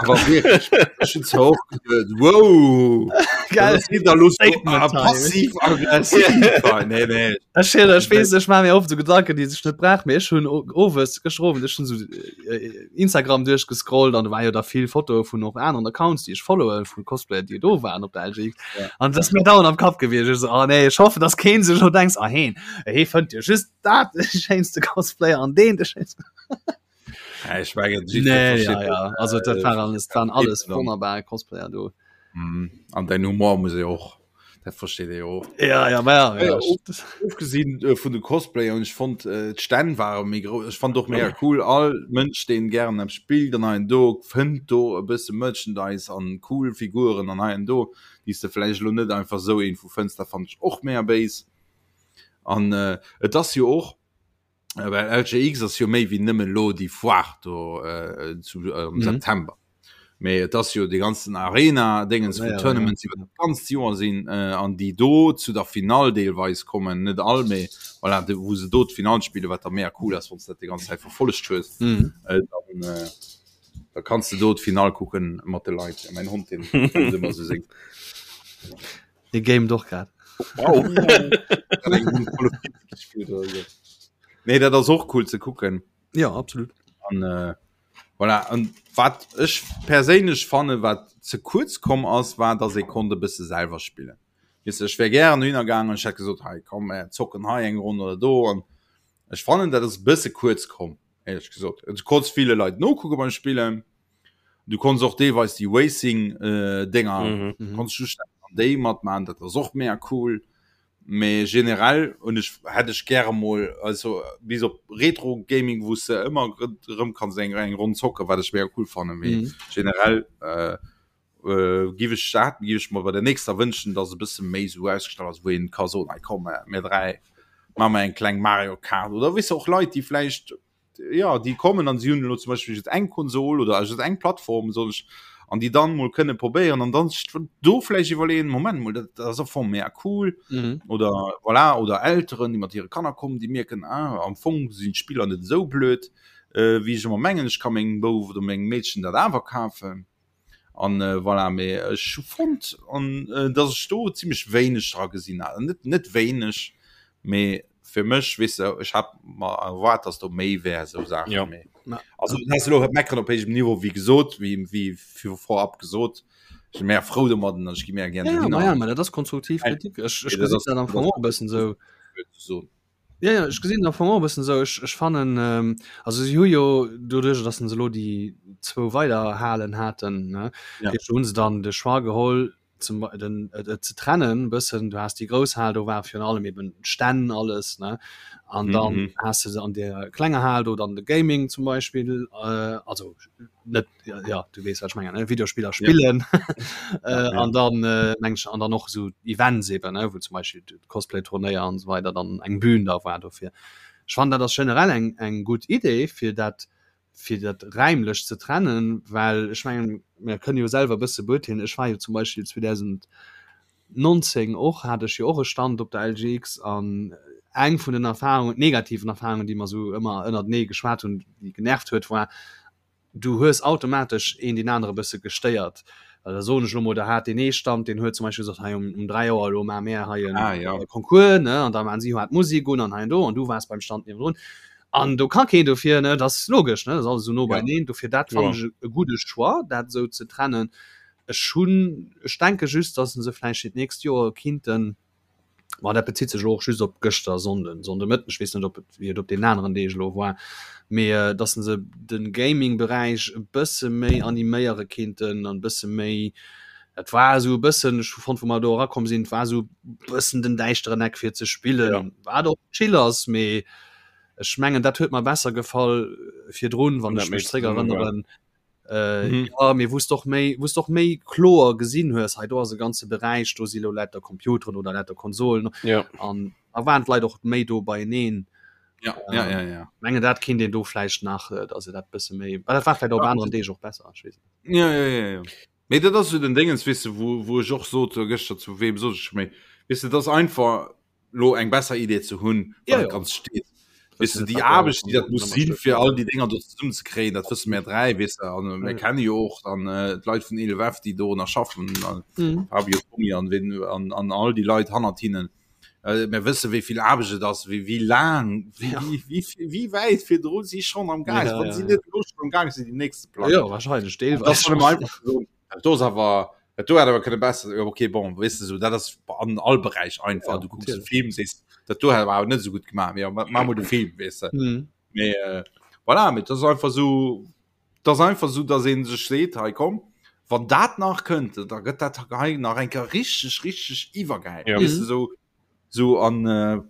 Awer wierklech, ech hunn zwar och geduet, wow, Gell? dat ass wieder los Statement time. passiv aggressiv. Nee, nee. Ech, ech weess, ech maache mir oft esou Gedanken déi sech net brauch, mee ech hunn owes gëschter Owend ech hunn esou Instagram duerchgescrollt an do war jo da vill Fotoe vun och aneren Accounts, déi ech followen, vu Cosplayer, déi do waren op der LGX. Ja. An dat ass mir dauernd am Kapp gewiescht. Ech so, oh nee, ech hoffen, dass keen sech lo denkt, ah heen, hee fënnt jo just dat de schéinste Cosplayer an deen de schéinste. Ja, ich mengen, jiddwer Nee, versteet ja, ja. Also dat äh, war alles, waren alles dann. wonnerbar Cosplayer do. Mhm. An dein Humor muss e och dat versteet e och. Ja, ja, ma ja, Ja, ja. Ofgesinn äh, vun de Cosplayer und ich fand äh, d'Stänn ware méi grouss. Ech fand och mega cool all Mënsch deen gären eppes spillt an hei an do fënnt do e bësse Merchandise an cool Figuren an hei an do déi s de vläicht elo net einfach sou iergendwou fënns. Dat fand ech och mega béis. An äh, et ass jo och Äh, well LGX ass jo méi wéi nëmmen lo déi Foire do äh, zu, äh, am Mhm. September. Mee et ass jo de ganzen Arena Dingens Ja, vu ja, Tournaments iwwer dat ganzt Joer sinn äh, an déi do zu der Final deelweis kommen, net all méi voilà, de, wou se do d'Final spille, wat da mega cool ass, wann s dat déi ganz Zäit verfollegt hues. Mhm. Äh, dann, äh, da kanns du do d'Final kucken mat de Leit. Ja, mein Hond den kennt ëmmer sou seng. Dee gamet och grad. Wow. Nee, dat ass och cool ze kucken. Ja, absolut. An, äh, voilà. An wat ech perséinlech fanne wat ze kuerz komm ass, war dass ee konnt e bësse selwer spillen. Weess de, ech wär gären dohinner gaangen, ech hätt gesot, hei komm mir zocken hei eng Ronn oder do an ech fannen dat ass e bësse kuerz komm, éierlech gesot. Du konns ville Leit nokucke beim Spillen, Du konns och deelweis déi Racing äh, Dinger mhm. mhm. konns du an déi matmachen, dat ass och mega cool. Mee generell und ich hätt ech gäre mol also bis op Retro Gaming wou se ëmmer rëm kanns eng eng Ronn zocke wat ech mega cool fanne mee mhm. generell äh, Äh, giff ech dat giff ech mer bei der nächster wënschen, dass e bësse méi sou ausgestallt ass, wou een ka soen, hei komm, mir 3 maache mer eng kleng Mario Kart oder weess de och Leit, déi vläicht ja déi kommen an si hunn elo zum Beispill just eng Konsol oder just eng Plattform soll ech an déi dann mol kënne probéieren an dann sech do vläicht iwwerleeën, Moment mol, dat ass am Fong mega cool mhm. oder voilà, oder Elteren, déi mat hire Kanner kommen, déi mierken, ah, am Fong sinn d'Spiller net esou blöd, äh, wéi ech ëmmer mengen, ech ka mengem Bouf oder mengem Meedchen dat awer kafen. An äh, voilà, mee ech hu fonnt an äh, dass ech do ziemlech wéineg dra gesinn hat. Net net wéineg, mee fir mech weess de, ech hat mer erwaart, dass do méi wär sou Saachen. Ja. Mee, also dat ass elo meckern op héijem Niveau, wéi gesot, wéi wéi vir vorab gesot. Ech si mär frou domadden an ech gi mär gär Ja, ja, dohinner. ma ja, ma dat ass konstruktiv Kritik. Ech, ech Nee, dat gesinn ass- dat am Fong och e bëssen sou. So. Ja, ja, ech gesinn am Fong och e bëssen esou. Ech, ech fannen, ähm, also si hu jo doduerch, datt se elo déi zwou weider Halen haten, ne, Ja. ja. hunn se dann de Choix geholl, zum, den, et, et ze trennen e bëssen. Du has déi grouss Hal, do war virun allem eben d'Stänn alles, ne, an dann Mhm. has de an där klenger Hal do dann de Gaming zum Beispill, äh, also net ja, ja du wees wat ich mengen ne? Videospieler spillen ja. äh, ja. an dann äh, meng an dann noch so Events eben ne? wo zum Beispiel Cosplay Turnéier an so weiter dann eng Bühn da war dofir. Ich fand dat das generell eng eng gut Idee fir dat fir dat räimlech ze trennen, well ech mengen mir kënne jo selwer bësse beurteelen. Ech war jo zum Beispiel 2019 och hat ech jo och e Stand op der LGX an eng vun den Erfahrungen negativen Erfahrungen, déi mer sou ëmmer ënnertenee geschwat hunn, déi genervt huet, war du hues automatesch een deen anere bësse gestéiert. Well da soen ech elo mol, da hat deen ee Stand, deen huet zum Beispill gesot, hei um, um 3 Auer elo maache mär hei en ah, ja. Concours, ne, an da maachen si hat Musek un an hei an do an du waars beim Stand niewendrun. An do ka keen dofir, ne, dat ass logesch, ne, dat ass alles esou no ja. beieneen. Dofir dat fannen Ja. ech e gudde Choix, dat esou ze trennen. Ech hunn, ech denke just, datt se vläicht fir d'nächst Joer kinnten, Ma dat bezitt sech elo och just op gëschter Sonnden, Sonndemëtten, ech weess net op et wéi et op deenen aneren Deeg elo war, mee datt se de Gaming-Beräich e bësse méi animéiere kinnten an e bësse méi, dat war esou e bëssen, ech hu fonnt wou mer do erakomm sinn, et war esou e bëssen den däischteren Eck fir ze spillen, wat och chill ass, mee ech mengen dat huet mer besser gefall virdrun, wann ech mech zréck erënneren. Äh, mhm. ja, mir wusst doch méi wusst doch méi kloer gesinn hues hei do ass e ganze Beräich do si lo lauter Computeren oder lauter Konsolen ja. an da waren d'Leit och méi do beieneen. Ja, ähm, ja, ja, ja. Menge dat kind den do vläicht nach äh, dass se dat bësse méi dat war vielleicht op ja. anderen Deeg och besser ich weess net. Ja, ja, ja, ja. Mee dat ass so den Dingens wisse wo, wo ech och sot äh, gëschter zu wem sot ech méi wisse das einfach lo eng besser Idee ze hunn ja, ja. ganz steet weißt du, die Aarbecht die dat muss sinn fir all die Dinger do zesummen ze kréien dat wësse mir 3 weißt du, an mir kenne jo och dann äh, d'Leit vun 11F déi do nach schaffen an mhm. Fabio Tommy an wen an, an all die Leit hannert hinnen äh, mir wësse wéi vill Aarbecht et ass wéi wéi laang wéi, Ja. wéi, wéi, wéi wäit virdrun si schon am Gang Ja, wann ja, si ja. net lo schon am Gang sinn déi nächste Plan Ja, wahrscheinlich das deelweis. soll man einfach so Dat do ass awer dat do hat awer kënne besser ja, okay bon weißt du, so dat ass an all Beräich einfach Ja, du kucks de natierlech. Film sees dat do hat awer net so gut gemacht ja, ma ma mol de Film weißt du. Mhm. Mee, äh, voilà, mee das ass einfach so das ass einfach so dass een sech seet hei komm wann dat nach kënnt da gëtt dat hei nach eng Kéier richteg richteg iwwergäil Ja. weißt du, so so an äh,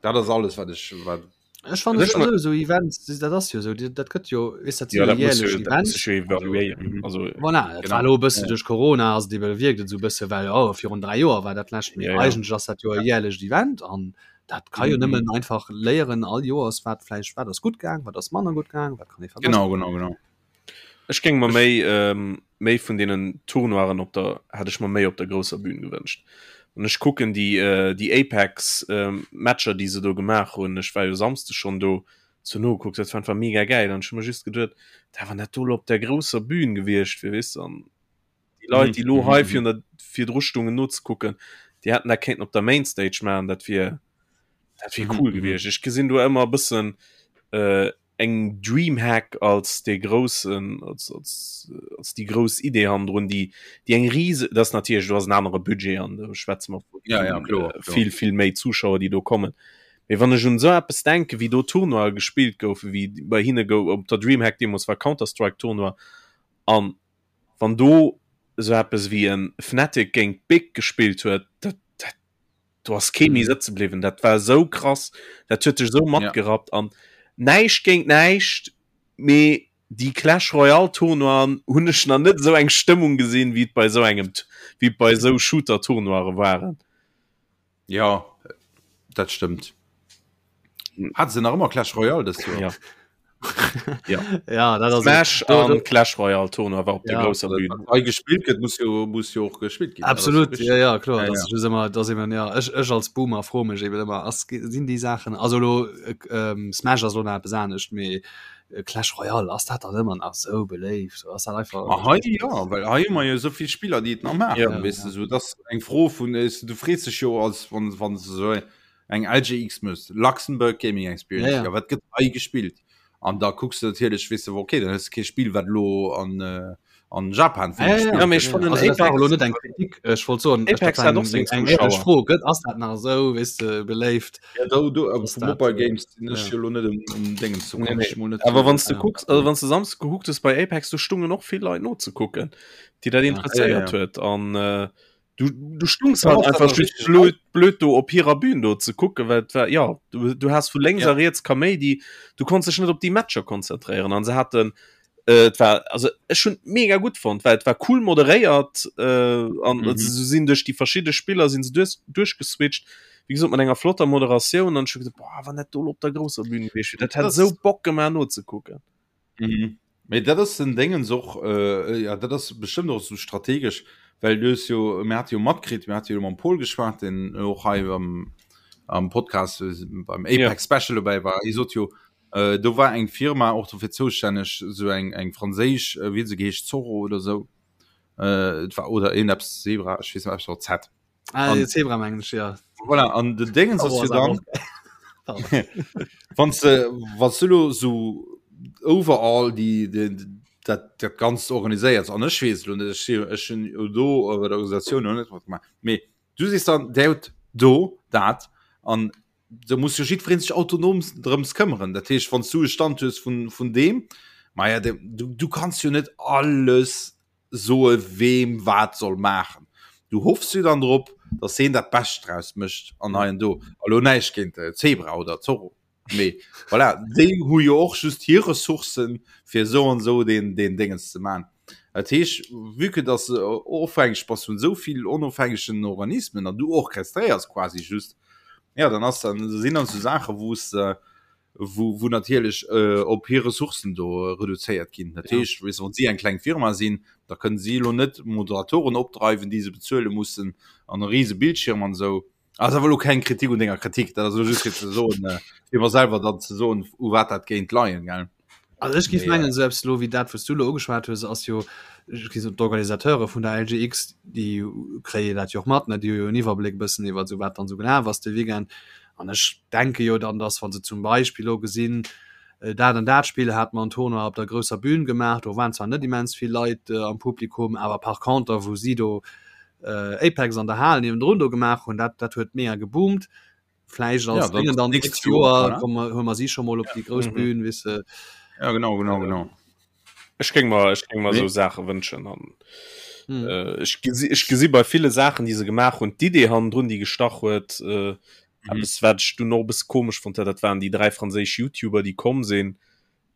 dat ass alles wat ech wat Ech fand Ech also, so Events dat ass jo so dat gëtt jo is dat Ja, dat muss jährlech jo, dat muss Event sech jo evaluéieren. Also, Voilà, dat Genau. war lo e bësse Ja. duerch Corona ass et ebe wierkt et sou bësse well oh, virun 3 Joer war dat lescht mee Ja, ja. eigentlech ass dat jo e jährlecht Event an dat ka jo Mhm. nëmmen einfach léieren all Joers wat vläicht wat ass gutt gaang, wat ass manner gutt gaang, wat kann ee verbessern. genau genau genau Ech géing mer méi ähm, méi vun deenen Tournoiren op der hätt ech mer méi op der grousser Bühn gewënscht. An ech kucken déi äh, déi Apex ähm, Matcher, déi se do gemaach hunn. Ech war jo Samsde schonn do zu nogekuckt, dat war einfach mega gäil. An ech hu mer just geduet, da wann dat do lo op der grousser Bühn gewiescht wier, weess de, an déi Leit, déi lo hei virun der virdru stungen nozekucken, déi hätten dat kéinten op der Mainstage maachen, dat wier dat wier cool gewiescht. Ech gesinn do ëmmer e bëssen äh, eng Dreamhack als dee groussen als, als, als déi grouss Idee hannendrun, déi déi eng rise dat ass natierlech do ass en anere Budget an do schwätze mer vu Ja, ja, kloer, kloer. vill vill méi Zuschauer, déi do kommen. Mee wann ech un esou eppes denken, wéi do Tournoie gespillt goufen, wéi bei hinne gouf op der Dreamhack deemools war Counter-Strike Tournoi an wann do esou eppes wéi e Fnatic géint Big gespillt huet, dat dat do ass kee méi sëtze bliwwen. Dat war esou krass, dat huet dech esou matgerappt an näischt géint näischt, mee. Déi Clash Royale Tournoien hunn ech nach net esou eng Stëmmung gesinn, wéi et bei esou engem, wéi et bei esou Shooter Tournoiere waren. Ja, dat stëmmt. Hat se nach ëmmer Clash Royale dëst Joer? Ja. Ja. Ja, dat ass Smash an Clash Royale Tournoi war op der Ja. grousser Bühn. Wat hei gespillt gëtt, muss jo, muss jo och gespillt ginn. Absolut, ja, ja, kloer. Ja, Das ja. ist just immer, das eben, ja, ech, ech als Boomer froe mech eben ëmmer, ass, sinn déi Saachen, also lo, äh, ähm, Smash ass lo nach eppes anescht, mee äh, Clash Royale, ass dat dann ëmmer nach sou beléift? Ass dat einfach. Ma hei ja, well hei hu mer jo esou vill Spiller, déi et nach maachen, Ja. weess de, sou dass eng Fro vun, äh, du frees dech jo als wann wann se sou eng LGX mëss, Luxembourg Gaming Experience, Ja, ja. ja wat gëtt hei gespillt? An da kucks du natierlech, weess de, okay, dann hues de kee Spill, wat elo an äh, an Japan vill Ja, ja, gespillt ja. Ja, mee ech gëtt. fannen Also dat war Apex- elo net eng Kritik, ech wollt soen, ech- Apex dat war hat och eng, seng eng éierlech Zuschauer. Fro, gëtt, ass dat nach esou, weess de, beléift? Ja, do, do, awer Ass vu dat, Mobile äh, Games sinn ech ja. jo elo net um, um Dingens, do Nee, kann nee. ech mol net Awer wann s du Ja. kucks, also wann s du Samsdes gekuckt hues bei Apex, do stungen och vill Leit nozekucken, déi dat interesséiert Ja, ja. huet. An äh, du, du stungs Ja, halt was dat einfach ass just richtig blöd, blöd do op hirer Bühn do ze kucken, well et war, ja, du, du has vu lénks Ja. a riets Kaméidi, du konns dech net op déi Matcher konzentréieren an se haten äh, et war also ech hunn mega gutt fonnt, well et war cool moderéiert äh, an mhm. se sinn duerch déi verschidde Spiller sinn se duerch, duerchgeswitcht wéi gesot mat enger flotter Moderatioun an ech hu gesot boah, wann dat do op der grousser Bühn gewiescht wier, dat hätt Das- esou Bock gemaach nozekucken. Mhm. Mee dat ass den Déngens och, äh, ja, dat ass bestëmmt och sou strategesch, well du hues jo, mir hate jo matkritt, mir hate jo mam Paul geschwat, deen och hei am, am Podcast äh, beim Apex Ja. Special dobäi war. Hie sot jo, äh, do war eng Firma och dofir zoustänneg, sou eng, eng franséisch, äh, wéi huet se geheescht, Zorro oder sou, äh, et war, oder een eppes Zebra, ech weess net, eppes mat Z. Ah, An- Zebra mengen ech, ja. Voilà, an den Déngens ass Zorro jo ass awer dann, och geil. Wann se wann du lo so overall die, die dat dat ganzt organiséiert an ech weess lo net ech si ech hunn jo do bei der Organisatioun noch net matgemaach mee du sees dann der huet do dat an do muss jo jiddwereen sech autonom drëms këmmeren dat heescht wann du e Stand hues vun vun deem ma ja de, du, du kanns jo net alles soe weem wat soll maachen. Du hoffs jo dann drop, datt heen dat Bescht draus mécht an hei an do. A lo näischt géint Zebra oder Zorro, mee voilà, déi hu jo och just hir Ressourcen, fir esou an esou deen, deen Déngens ze maachen. Dat heescht, vue que datt se ofhängeg bass vun esou vill onofhängegen Organismen an du orchestréiers quasi just, ja, dann ass dann, sinn dann esou Saache wou s de wou, wou natierlech äh, op hir Ressourcen do reduzéiert ginn. Dat Ja. heescht, weess, wann si eng kleng Firma sinn, da kënnen si elo net Moderatoren opdreiwen, déi se bezuele mussen an e riese Bildschirm an esou. Ass awer elo keng Kritik un denger Kritik, dat ass elo just fir ze soen, äh, fir mer selwer dann ze soen, u wat dat géint leien, gell? Also ech géif Mee, mengen, esou eppes elo wéi dat, wou s du elo ugeschwat hues, ass jo, ech géif soen, d'Organisateure vun der LGX, déi kréie dat jo och mat, ne, déi hu jo en Iwwerbléck e bëssen iwwer esou wat dann esou gelaf ass de Weekend. An ech denke jo dann, dass wa se zum Beispill elo gesinn, dat an dat Spill hat mer en Tournoi op der grousser Bühn gemaach, do waren zwar net immens vill Leit am Publikum, awer par conter wou si do Apex an der Hal niewendrun do gemaach hunn, dat dat huet mega geboomt. Vläicht als Ja, dann Déngen dann nächst nächst Joer, Joer voilà. komme hu mer si scho mol op déi grouss Mhm. Bühn, weess de. Ja, genau, genau, genau. Ech géing mer, ech géing mer Nee. esou Saache wënschen an Hm. äh, ech gesi, ech gesi bei ville Saachen, déi se gemaach hunn, d'Idee hannendrun, déi gestach huet, äh, Mhm. eppes wat ech dunn och e bësse komesch fonnt hat, dat waren déi 3 franséisch YouTuber, déi komm sinn.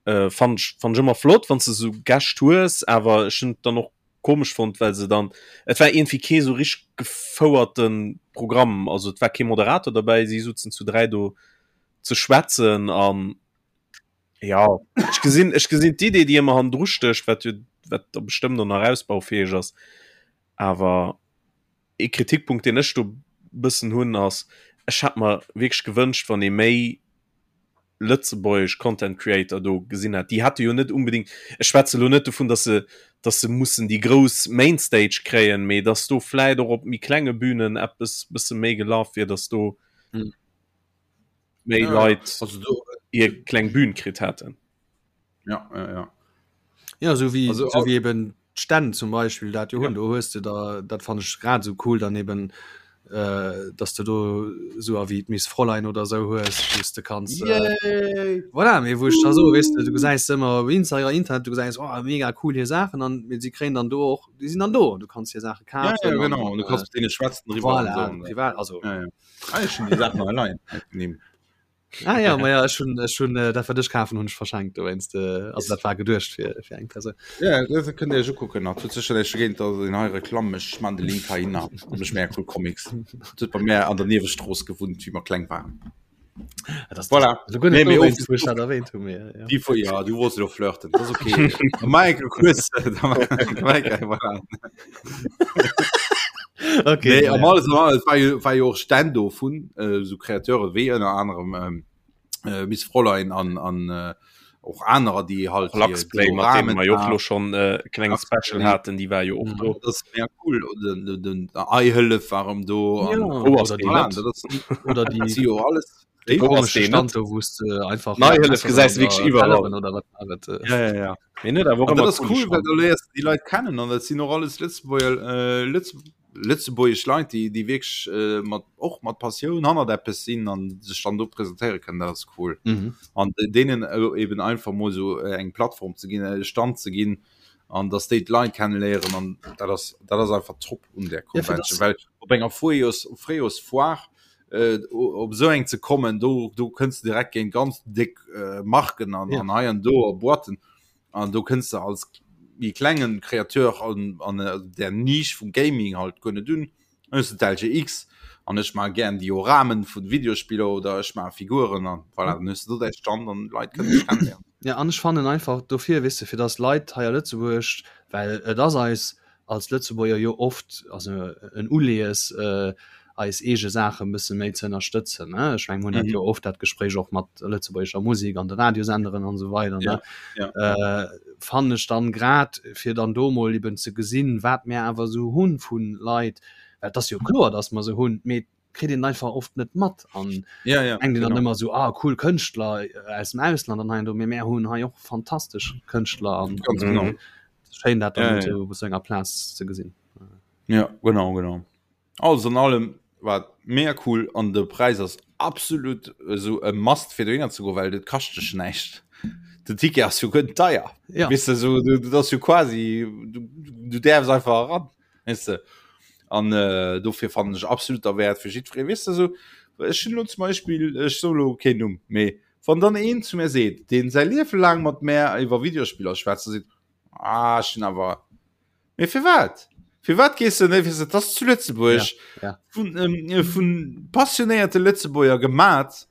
Äh, fand ech, fand ech ëmmer flott, wann s de esou Gäscht hues, awer ech hunn et dann och komesch fonnt, well se dann, et war iergendwéi kee sou richteg gefouerte Programm, also et war kee Moderator derbäi, si sutzen zu 3 do ze schwätzen an ja, ech gesinn, ech gesinn d'Idee, déi ëmmer hannendru stécht, wat jo, wat da bestëmmt och nach ausbaufäeg ass, awer ee Kritikpunkt, deen ech do bëssen hunn, ass, ech hätt mer wierklech gewënscht, wann ee méi lëtzebuergesch Content Creator do gesinn hätt. Déi hätte jo net unbedingt, ech schwätze lo net dovun, dass se, dass se mussen déi grouss Mainstage kréien, mee dass do vläit och op méi klenge Bühnen eppes bësse méi gelaf wier, dass do Mhm. méi Ja, ja. Leit Also do, hir kleng Bühn kritt hätten. ja, ja, ja. Ja, sou wéi, Also, sou wéi eben d'Stänn zum Beispill dat jo hunn, do hues de da, dat fann ech grad esou cool dann eben, äh, dass de do esou a wéi d'Miss Fräulein oder esou hues, wou s de kanns, äh, Yay! voilà, mee wou ech da soe, weess de, du gesäis se ëmmer op Insta, Internet, du gesäis, oh mega cool hir Saachen an mee si kréien dann do och, déi sinn dann do, du kanns hir Saache Ja, ja, kafen an, genau. Und du äh, kannst mit denen schwätzen drüber und voilà, so. privat, also Ja, ja. Ah, ich schon die Sachen allein. Nehmen. Ah ja, ma ja, ech hunn ech hunn äh, dat wat ech kafen hunn ech verschenkt dowéinst äh, also dat war geduecht fir fir eng Persoun. Ja, dat kënnt Dir iech ukucken. Dat huet sécher näischt dogéint, dass een hei Reklamm mécht. Ech man de Link hei hinner. Dat mécht mega cool Comics. Dat huet bei mär an der Niewestrooss gewunnt, wéi mer kleng waren. Ja, das, voilà. das, das, nee, nee, wo ich dat erwähnt hu mir. Ja. Die, ja, du wolltest doch flirten. Das ist okay. Michael, kurz. Michael, okay, nee, am alles, alles war, jo, war jo och Stänn do vun äh, so Kreateure wéi ënner anerem ähm, äh, Miss Fräulein an, an äh, och anerer, déi halt Luxplay, mat deem mer jo och lo schon äh, klenge Special haten, déi war jo och do. Das ist mega cool. Den, den, den Eihëllef war erëm do. Ja, an, oh, oder die voilà, net. dat ass, Oder die, si jo alles. die Wo ass komische deen Stand net? do, wou s de einfach Neihëllef gesäis du wierklech iwwerall. Telleren oder wat war et, äh. Ja, ja, ja. Mee net awer och An dat ëmmer ass coole cool, well Stand. da léiers du déi Leit kennen an dat sinn och alles Lëtzebuerger, äh, Lëtz, lëtzebuergesch Leit, déi, déi wierklech äh, mat, och mat Passioun hannert eppes sinn an sech dann do presentéiere kënnen. Dat ass cool. Mhm. An deenen äh, eben einfach mol sou äh, eng Plattform ze ginn, e Stand ze ginn an dass déi d'Leit kennenléieren an dat ass, dat ass einfach top un där Ja, fir Convention, dass well op enger Fréijoers, Fréijoersfoire äh, op esou eng ze kommen, do, do kënns du direkt géint ganz déck äh, Marken an, Ja. an hei an do a Boîten an do kënns du als méi klengen Kreateur an, an äh, der Nisch vum Gaming halt guer net un. Dann hues du d'LGX an ech maache gären Dioramen vun Videospiller oder ech maache Figuren an voilà, dann hues du do däi Stand an d'Leit kënnen dech kennenléieren. Ja, an ech fannen einfach dofir, weess de, fir dass Leit hei a Lëtzebuerg, well et ass eis als Lëtzebuerger jo oft also en Uleeës eis eege Saache e bësse méi ze ënnerstëtzen. Ech meng, mir hunn dat jo oft dat Gespréich och mat lëtzebuergescher Musek an de Radiosenderen an esou weider ne. Fannen ech dann grad fir dann do mol eben ze gesinn, wat mir awer esou hu vu Leit, well et ass jo kloer, datt mer se hunn, mee kritt een einfach oft net mat an ja, ja, denkt een dann genau. ëmmer esou, ah cool Kënschtler aus dem Ausland an hei an do, mee mär hunn hei och fantastesch Kënschtler an Ganz genau. schéin dat dann Ja, ja. esou op esou enger Plaz ze gesinn. Ja, genau, genau. Alles an allem war et mega cool an de Präis ass absolut esou e Must fir dohinner ze goen, well dat kascht dech näischt. Den Ticket ass jo guer net deier. Ja. Weess de, esou, du, dat ass jo quasi, du, du däerfs einfach eran, weess de. An äh, dofir fannen ech absolut derwäert fir jiddweree, weess de, esou, ech hunn elo zum Beispill, ech soe lo keen Numm, mee wann dann een zu mir seet, deen säi Liewe laang mat mär iwwer Videospiller schwätzt a seet, ah, ech hunn awer, mee firwat? Firwat gees du net, weess de, et ass zu Lëtzebuerg Ja, ja. vun, ähm, vun passionéierte Lëtzebuerger gemat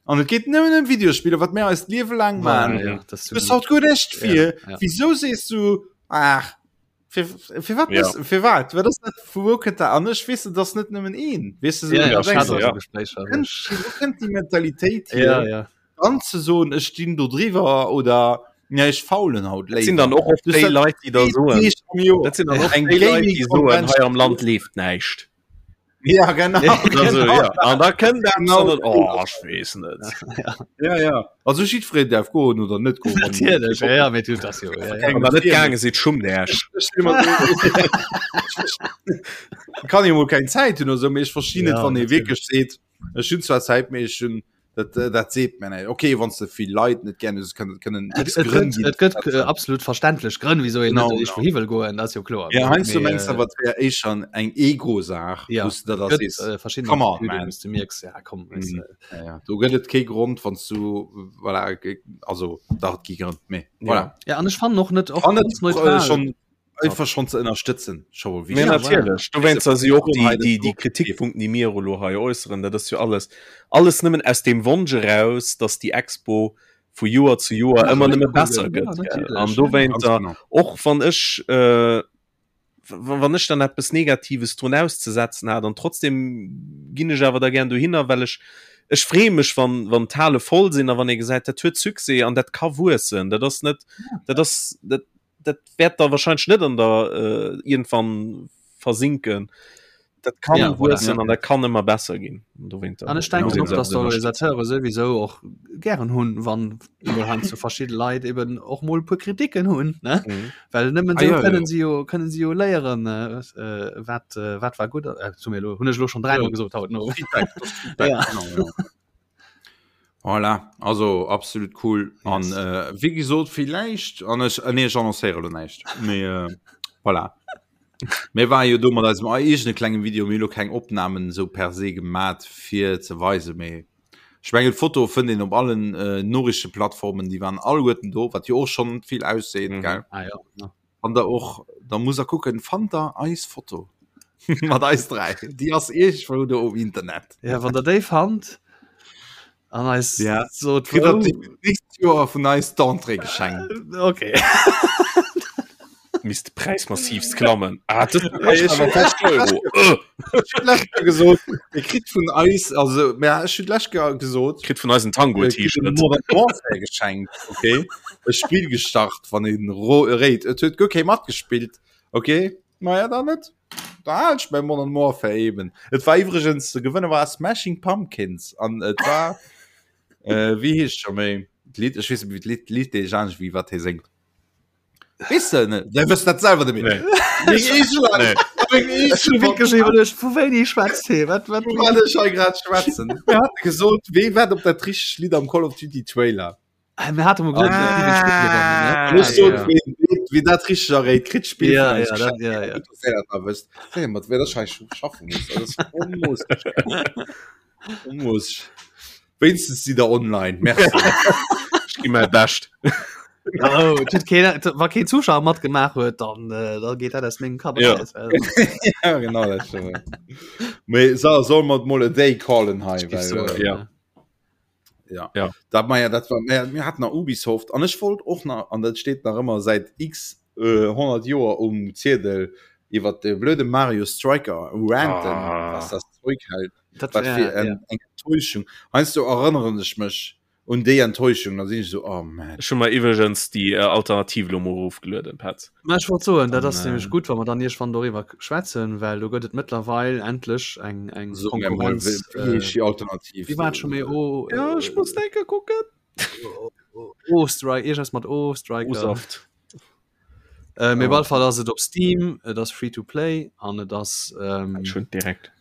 an et geet nëmmen ëm Videospiller, wat mär eist Liewe laang Voilà, man. ja, das Du bist haut guer näischt fir. Ja, ja. Wieso sees du, ach, fir, fir wat Ja. bist, fir wat? Wat ass dat, vu wou kënnt dat? An ech weess, et ass net nëmmen een. Weess du, so, Ja, ja, du ech denkst, hat och ja. esou Gespréicher. kënnt, wou kënnt déi Mentalitéit hier, Ja, ja. dann ze soen, ech stinn do driwwer oder ja, ech faulen haut Dat sinn dann och oft Du déi sat- Leit, déi da soen, Deeg am Joer. dat sinn dann och Eng déi Leit, déi soen, Gaming-Convention. hei am Land leeft näischt. Ja, genau. Also, genau. ja. An da kënnt eppes Genau. an dann, oh, ech weess net. Ja, ja. Also jiddwereen däerf goen oder net goen. wann- Natierlech, ja, ja, mee du, das jo, ja, ja. Wann der net gaange sidd, schummt Äech. Ech stell mer Kann jo mol keng Zäit hunn oder sou, mee ech verstinn net, Ja, wann ee natierlech. wierklech seet, ech hunn zwar Zäit, mee ech hunn dat, äh, dat seet mir net. Okay, wann s de vill Leit net gär hues, kënnen kënnen Et, x et Grënn gëtt, ginn. et gëtt äh, absolut verständlech Grënn, wieso een Genau, net eescht genau. wouhi wëll goen, dat ass jo kloer. Ja, heiansdo Mee, mengs du äh, awer, et wär éischer eng Ego-Saach, Ja, wou s du da gëtt sees, äh, verschidden come on, Attitüden, man. wou s du mierks, ja komm, weißt Mhm. du. Ja, ja. Do gëtt et kee Grond, wann s du, voilà, ge- also dach, et gi Grënn, mee voilà. Ja, an ech fannen och net och An et ganz äh, neutral. schon einfach schon ze ënnerstëtzen, scho mol Mee wichteg. Ja, natierlech, dowéinst si och déi, déi, déi Kritikpunkten, Kritikpunkten, déi mir elo hei äusseren, dat ass jo alles, alles nëmmen aus deem Wonsch eraus, datt déi Expo vu Joer zu Joer Nach ëmmer méi nëmme cool besser gëtt. Ja, gëtt. Gell? natierlech. An Ja. Ganz dowéinter, genau. och wann ech, äh, wann ech dann eppes Negatives drun auszesetzen hat, an trotzdem ginn ech awer da gär dohinner, well ech, ech freeë mech, wann, wann d'Hale voll sinn a wann ee gesäit, dat huet Succès an dat ka wuessen. Dat ass net, dat ass, dat, dat wäert da wahrscheinlich net an der äh, irgendwann versinken. Dat kann Ja, voilà. wuessen Ja. an dat kann ëmmer besser ginn. Dowéinter An ech denken muss och, een dass se ënnerstëtzen. d'Organisateure souwisou och gären hunn, wann mol heiansdo verschidde Leit eben och mol e puer Kritiken hunn, ne? Mhm. Well nëmmen Ah, esou ja, kënnen ja. si jo, kënnen si jo léieren, äh, äh, wat, äh, wat war gutt, äh, zu mir elo, hunn ech elo schon dräimol Ja. gesot haut, no. Feedback, das ist Feedback, Ja. genau, ja. Voilà, also absolut cool. An Yes. äh, wéi gesot, villäicht, an ech, äh, nee, ech annoncéiere lo näischt. Mee äh, voilà. Mir ware jo do mat eisem eegene klengen Video, mir hu lo keng Opnamen esou per se gemat fir ze weisen, mee. Ech mengen d'Foto fënnt een op allen äh, Noriichteplattformen, déi waren alleguerten do, wat jo och schonn vill ausseet, mhm. gell? Ah, ja. Ja. Wann der och, da muss er kucken, fannt der eis Foto mat eis 3. Déi ass iergendwou do um Internet. Ja, wann der déi fannt an eis ja. sot Kritt der d'nächst Joer vun eis d'Entrée geschenkt. Okay. Misst de Präis massivst klammen. Ah, das gesot Dir kritt vun eis also mä ech hunn lech gesot kritt vun eis en Tango-T-Shirt geschenkt okay e Spill gestart wann een ro réit et huet guer kee matgespillt okay Maja dann net da hal ech mäi Modern Warfare eben. Et war iwwregens de Gewënner war Smashing Pumpkins an et war äh, wéi heescht scho méi d'Lidd ech weess net wéi d'Lidd d'Lidd deeg anescht wéi wat hie séngt. Weess de net? Dä wësst dat selwer net méi. Nee. Nee. Ech hu wierklech iwwerluecht, vu wéini schwätzt hie? Wat, wat, Vu wat ech hei grad schwätzen. Mir hate gesot, wee wat op dat richtegt Lidd am Call of Duty Trailer. Ah, mir hate mol gesot, Ah, wéi den Spill gewonnen, ne? An ech sot, ja. wee, wee, wee dat richteg erréit, kritt d'Spill Ja, vun eis ja, dat, geschenkt. ja, ja. Gutt, dass Dir dat nach wësst. Wéi, mat wéi dat hei schaffen muss. Dat ass onmoosseg. Onmoosseg. Wéinstens si der online. Merci. Ech gi mäi Bescht. Oh, et huet keen, et, wa keen Zuschauer matgemaach huet, dann, äh, da geet dat aus mengem Kapp Ja. eraus. Also, ja, genau dat stimmt. Mee so, soll mer mol a day callen hei, ich well, soen, äh, ja. ja. Ja. Dat, ma ja, dat war, mir, mir hatten nach Ubisoft an ech wollt och nach, an dat steet nach ëmmer säit x äh, 100 Joer um Ziedel, iwwer de blöde Mario Striker ranten, Ah. was das Zeug hält. Dat, Wat ja, fir eng, ja. eng Enttäuschung. Heiansdo erënneren ech mech un déi Enttäuschung, da sinn ech esou, oh man. Ech hu mer iwwregens déi äh, Alternativ lo mol erofgelueden, Petz. Mä ech wollt soen, dat An, ass nämlech äh, gutt, wa mer dann iergendwann doriwwer schwätzen, well do gëtt et mëttlerweil endlech eng, eng So mir mol, Konkurrenz. wéi wéi heescht Äh, déi Alternativ? wéi war et scho méi? O, Ja, ech muss äh, denke kucken. O-Strike, iergendes mat O-Striker. Usaft. Äh, mee op Oh. alle Fall ass et op Steam, et ass free to play an et ass ähm, Ech hunn direkt.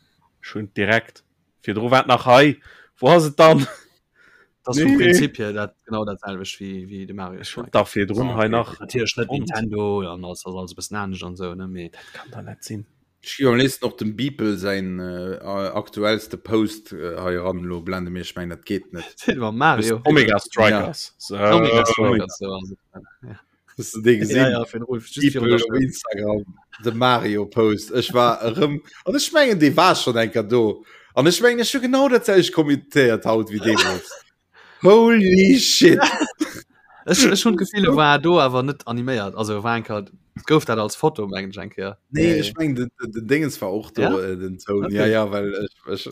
Ech hunn direkt. Virdru war et nach hei. Wou ass et dann? Das nee. vum Prinzip hier dat genau dat selwecht wéi wéi de Mario Ech hunn dach virdrun Ah, hei okay. nach. Natierlech net Fonnt. Nintendo an ass ass alles e bëssen anescht an sou ne mee Dat kann da net sinn. Ech gi am léifsten och dem Beeple säin äh, aktuellste Post äh, hei eran elo blende mir. Ech mengen dat geet net. Silver Mario Omega Strikers. So. Omega Strikers so ass et. Ja. Hast du dee gesinn? Ja, ja, fir den Rolf, just virun Beeple der op Instagram de Mario Post. Ech war erëm an ech mengen dee war schon enker do. An ech mengen ech hu genau dat selwecht kommentéiert haut wéi deemools. Holy shit! Ech, ech hunn d'Gefill, e war do awer net animéiert. Also war enker, gouf dat als Foto mengen ech eng Kéier. Nee, ech mengen den, den, den Dingens war och do Ja? äh, den Toun. Okay. Ja ja, well ech,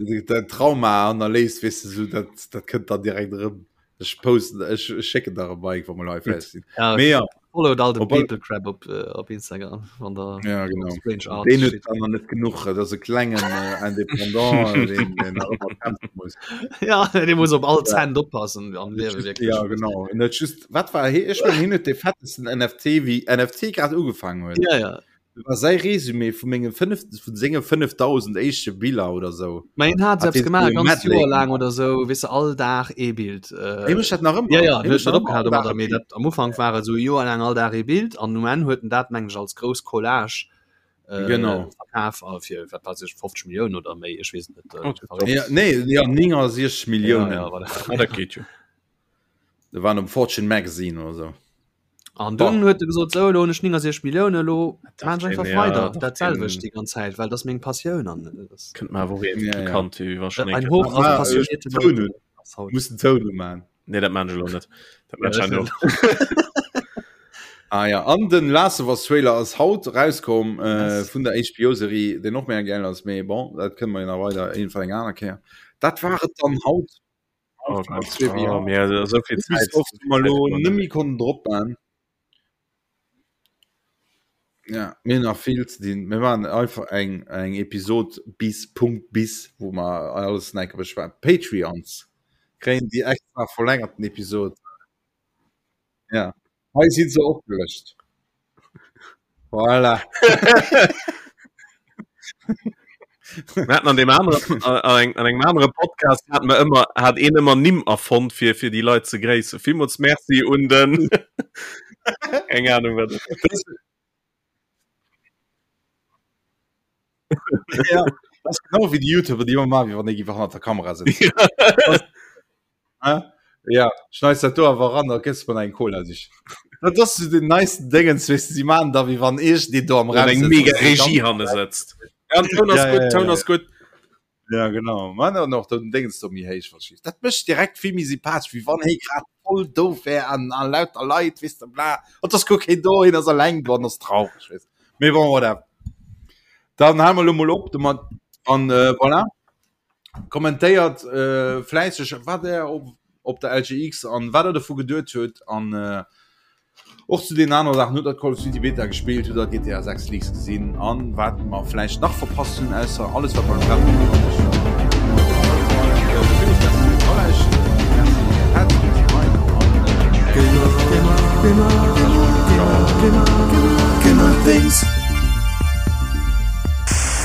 ech dat Trauma hannerléisst, weess de, so dat dat kënnt dann direkt erëm. Ech posten, ech schécken der e Bike, wa mer hei fäerdeg sinn. Ja, Mee ja, followt all den Op all- People Crab op, äh, op Instagram, wann der ja genau. Strange Art Deen huet steet. dann nach net genuch, dat ass e klengen äh, Independant, äh, deen, deen nach ëmmer kämpfe muss. Ja, dee muss op all Cent oppassen am Liewe wierklech. Ja, genau. En huet just, wat war hie? Ech mengen, hien huet dee fettesten NFT, wéi NFT grad ugefaangen huet. Ja, ja. War säi Resumé vu menge 5 vun senge 5000 éischte Biller oder sou. Mä hien hat Hat selbst hie gemaach, sou e ganz Medley Joer laang gemaach. oder sou, weess de, all Dag ee Bild. Äh, Hie mécht dat nach ëmmer. Ja, ja, Hie hien huet mécht net nach ëmmer opgehal all Dag domadder, e mee Bild. dat am Ufank war et sou e Joer laang all Dag ee Bild an um Enn huet en dat, mengen ech, als grouss Collage äh, Genau. verkaf a fir, wat weiß ech, 50 Milliounen oder méi, ech weess et net. Äh, Oh, verréckt. Ja, nee, ja, 69 Ja, Milliounen. ja, voilà. Ah, dat geet jo. Dat waren um Fortune Magazine oder sou. An dunn huet e gesot, sou, elo hunn ech 69 Milliounen, elo maan ech einfach weider dat selwecht déi ganz Zäit, well dat ass meng Passioun an dat ass Kënnt mer awer och iergendwéi Ja, ja. bekannt vir, wéi wa schonn eng ein Kéier Hoch auf Ah, passionierte Toun Leute hunn. ass haut. Muss den Toun umaan. Nee, dat maan ech elo net. Dat maan Ja, ech herno. Ah ja, an den Last of Us Trailer ass haut rauskomm äh, Yes. vun der HBO-Serie, deen och mega geil ass, mee bon, dat kënne mer jo nach weider iergendwann eng aner Kéier. Dat war et dann haut. Oh Gott, oh, mir so viel Zeit. Ubisoft mal lo nëmmi konnten drop man. Ja, mir nach vill ze dinn. Mir waren einfach eng eng Episod bis Punkt bis, wou mer alles enke beschwätzen. Patreons kréien déi extra verlängerten Episod. Ja. Hei si se opgelëscht. Voilà. Mir haten an dem aneren, an eng, an engem anere Podcast hat mer ëmmer, hat een ëmmer Nimm erfonnt fir, fir déi Leit ze gréissen. Villmools Merci un den, eng Ahnung wat. Ja. Dat ass genau wéi déi YouTuber, déi ëmmer maachen, wéi wann ee géif hannert der Kamera sëtzen. Ja, schneis dat do awer ran, da gëss mer eng Cola sich. Dat ass so den neisten Dingens, weißt du, sie machen da wie wann ich die do am Raum eng mega Regie hanne sëtzt. Ja, Toun ass ja, gutt, ja, Toun ja, ass gutt. Ja genau man an och den Dingens do méi héich verschieft. Dat mécht direkt vill méi sympathesch, wéi wann hee grad voll doof wär an an lauter Leit, weess de bla. An ass guer keen do, hien ass alleng do an ass traureg, weess. Mee bon, voilà. Dann hale mer lo mol op domat an äh, voilà. Kommentéiert äh, fläisseg wat der op, op der LGX an wat der dovu geduet huet an äh, och zu den anere Saachen. Hutt der Call of Duty Beta gespillt, hutt der GTA 6 Leaks gesinn an wat mer vläicht nach verpasst hunn, ausser alles wat mer grad.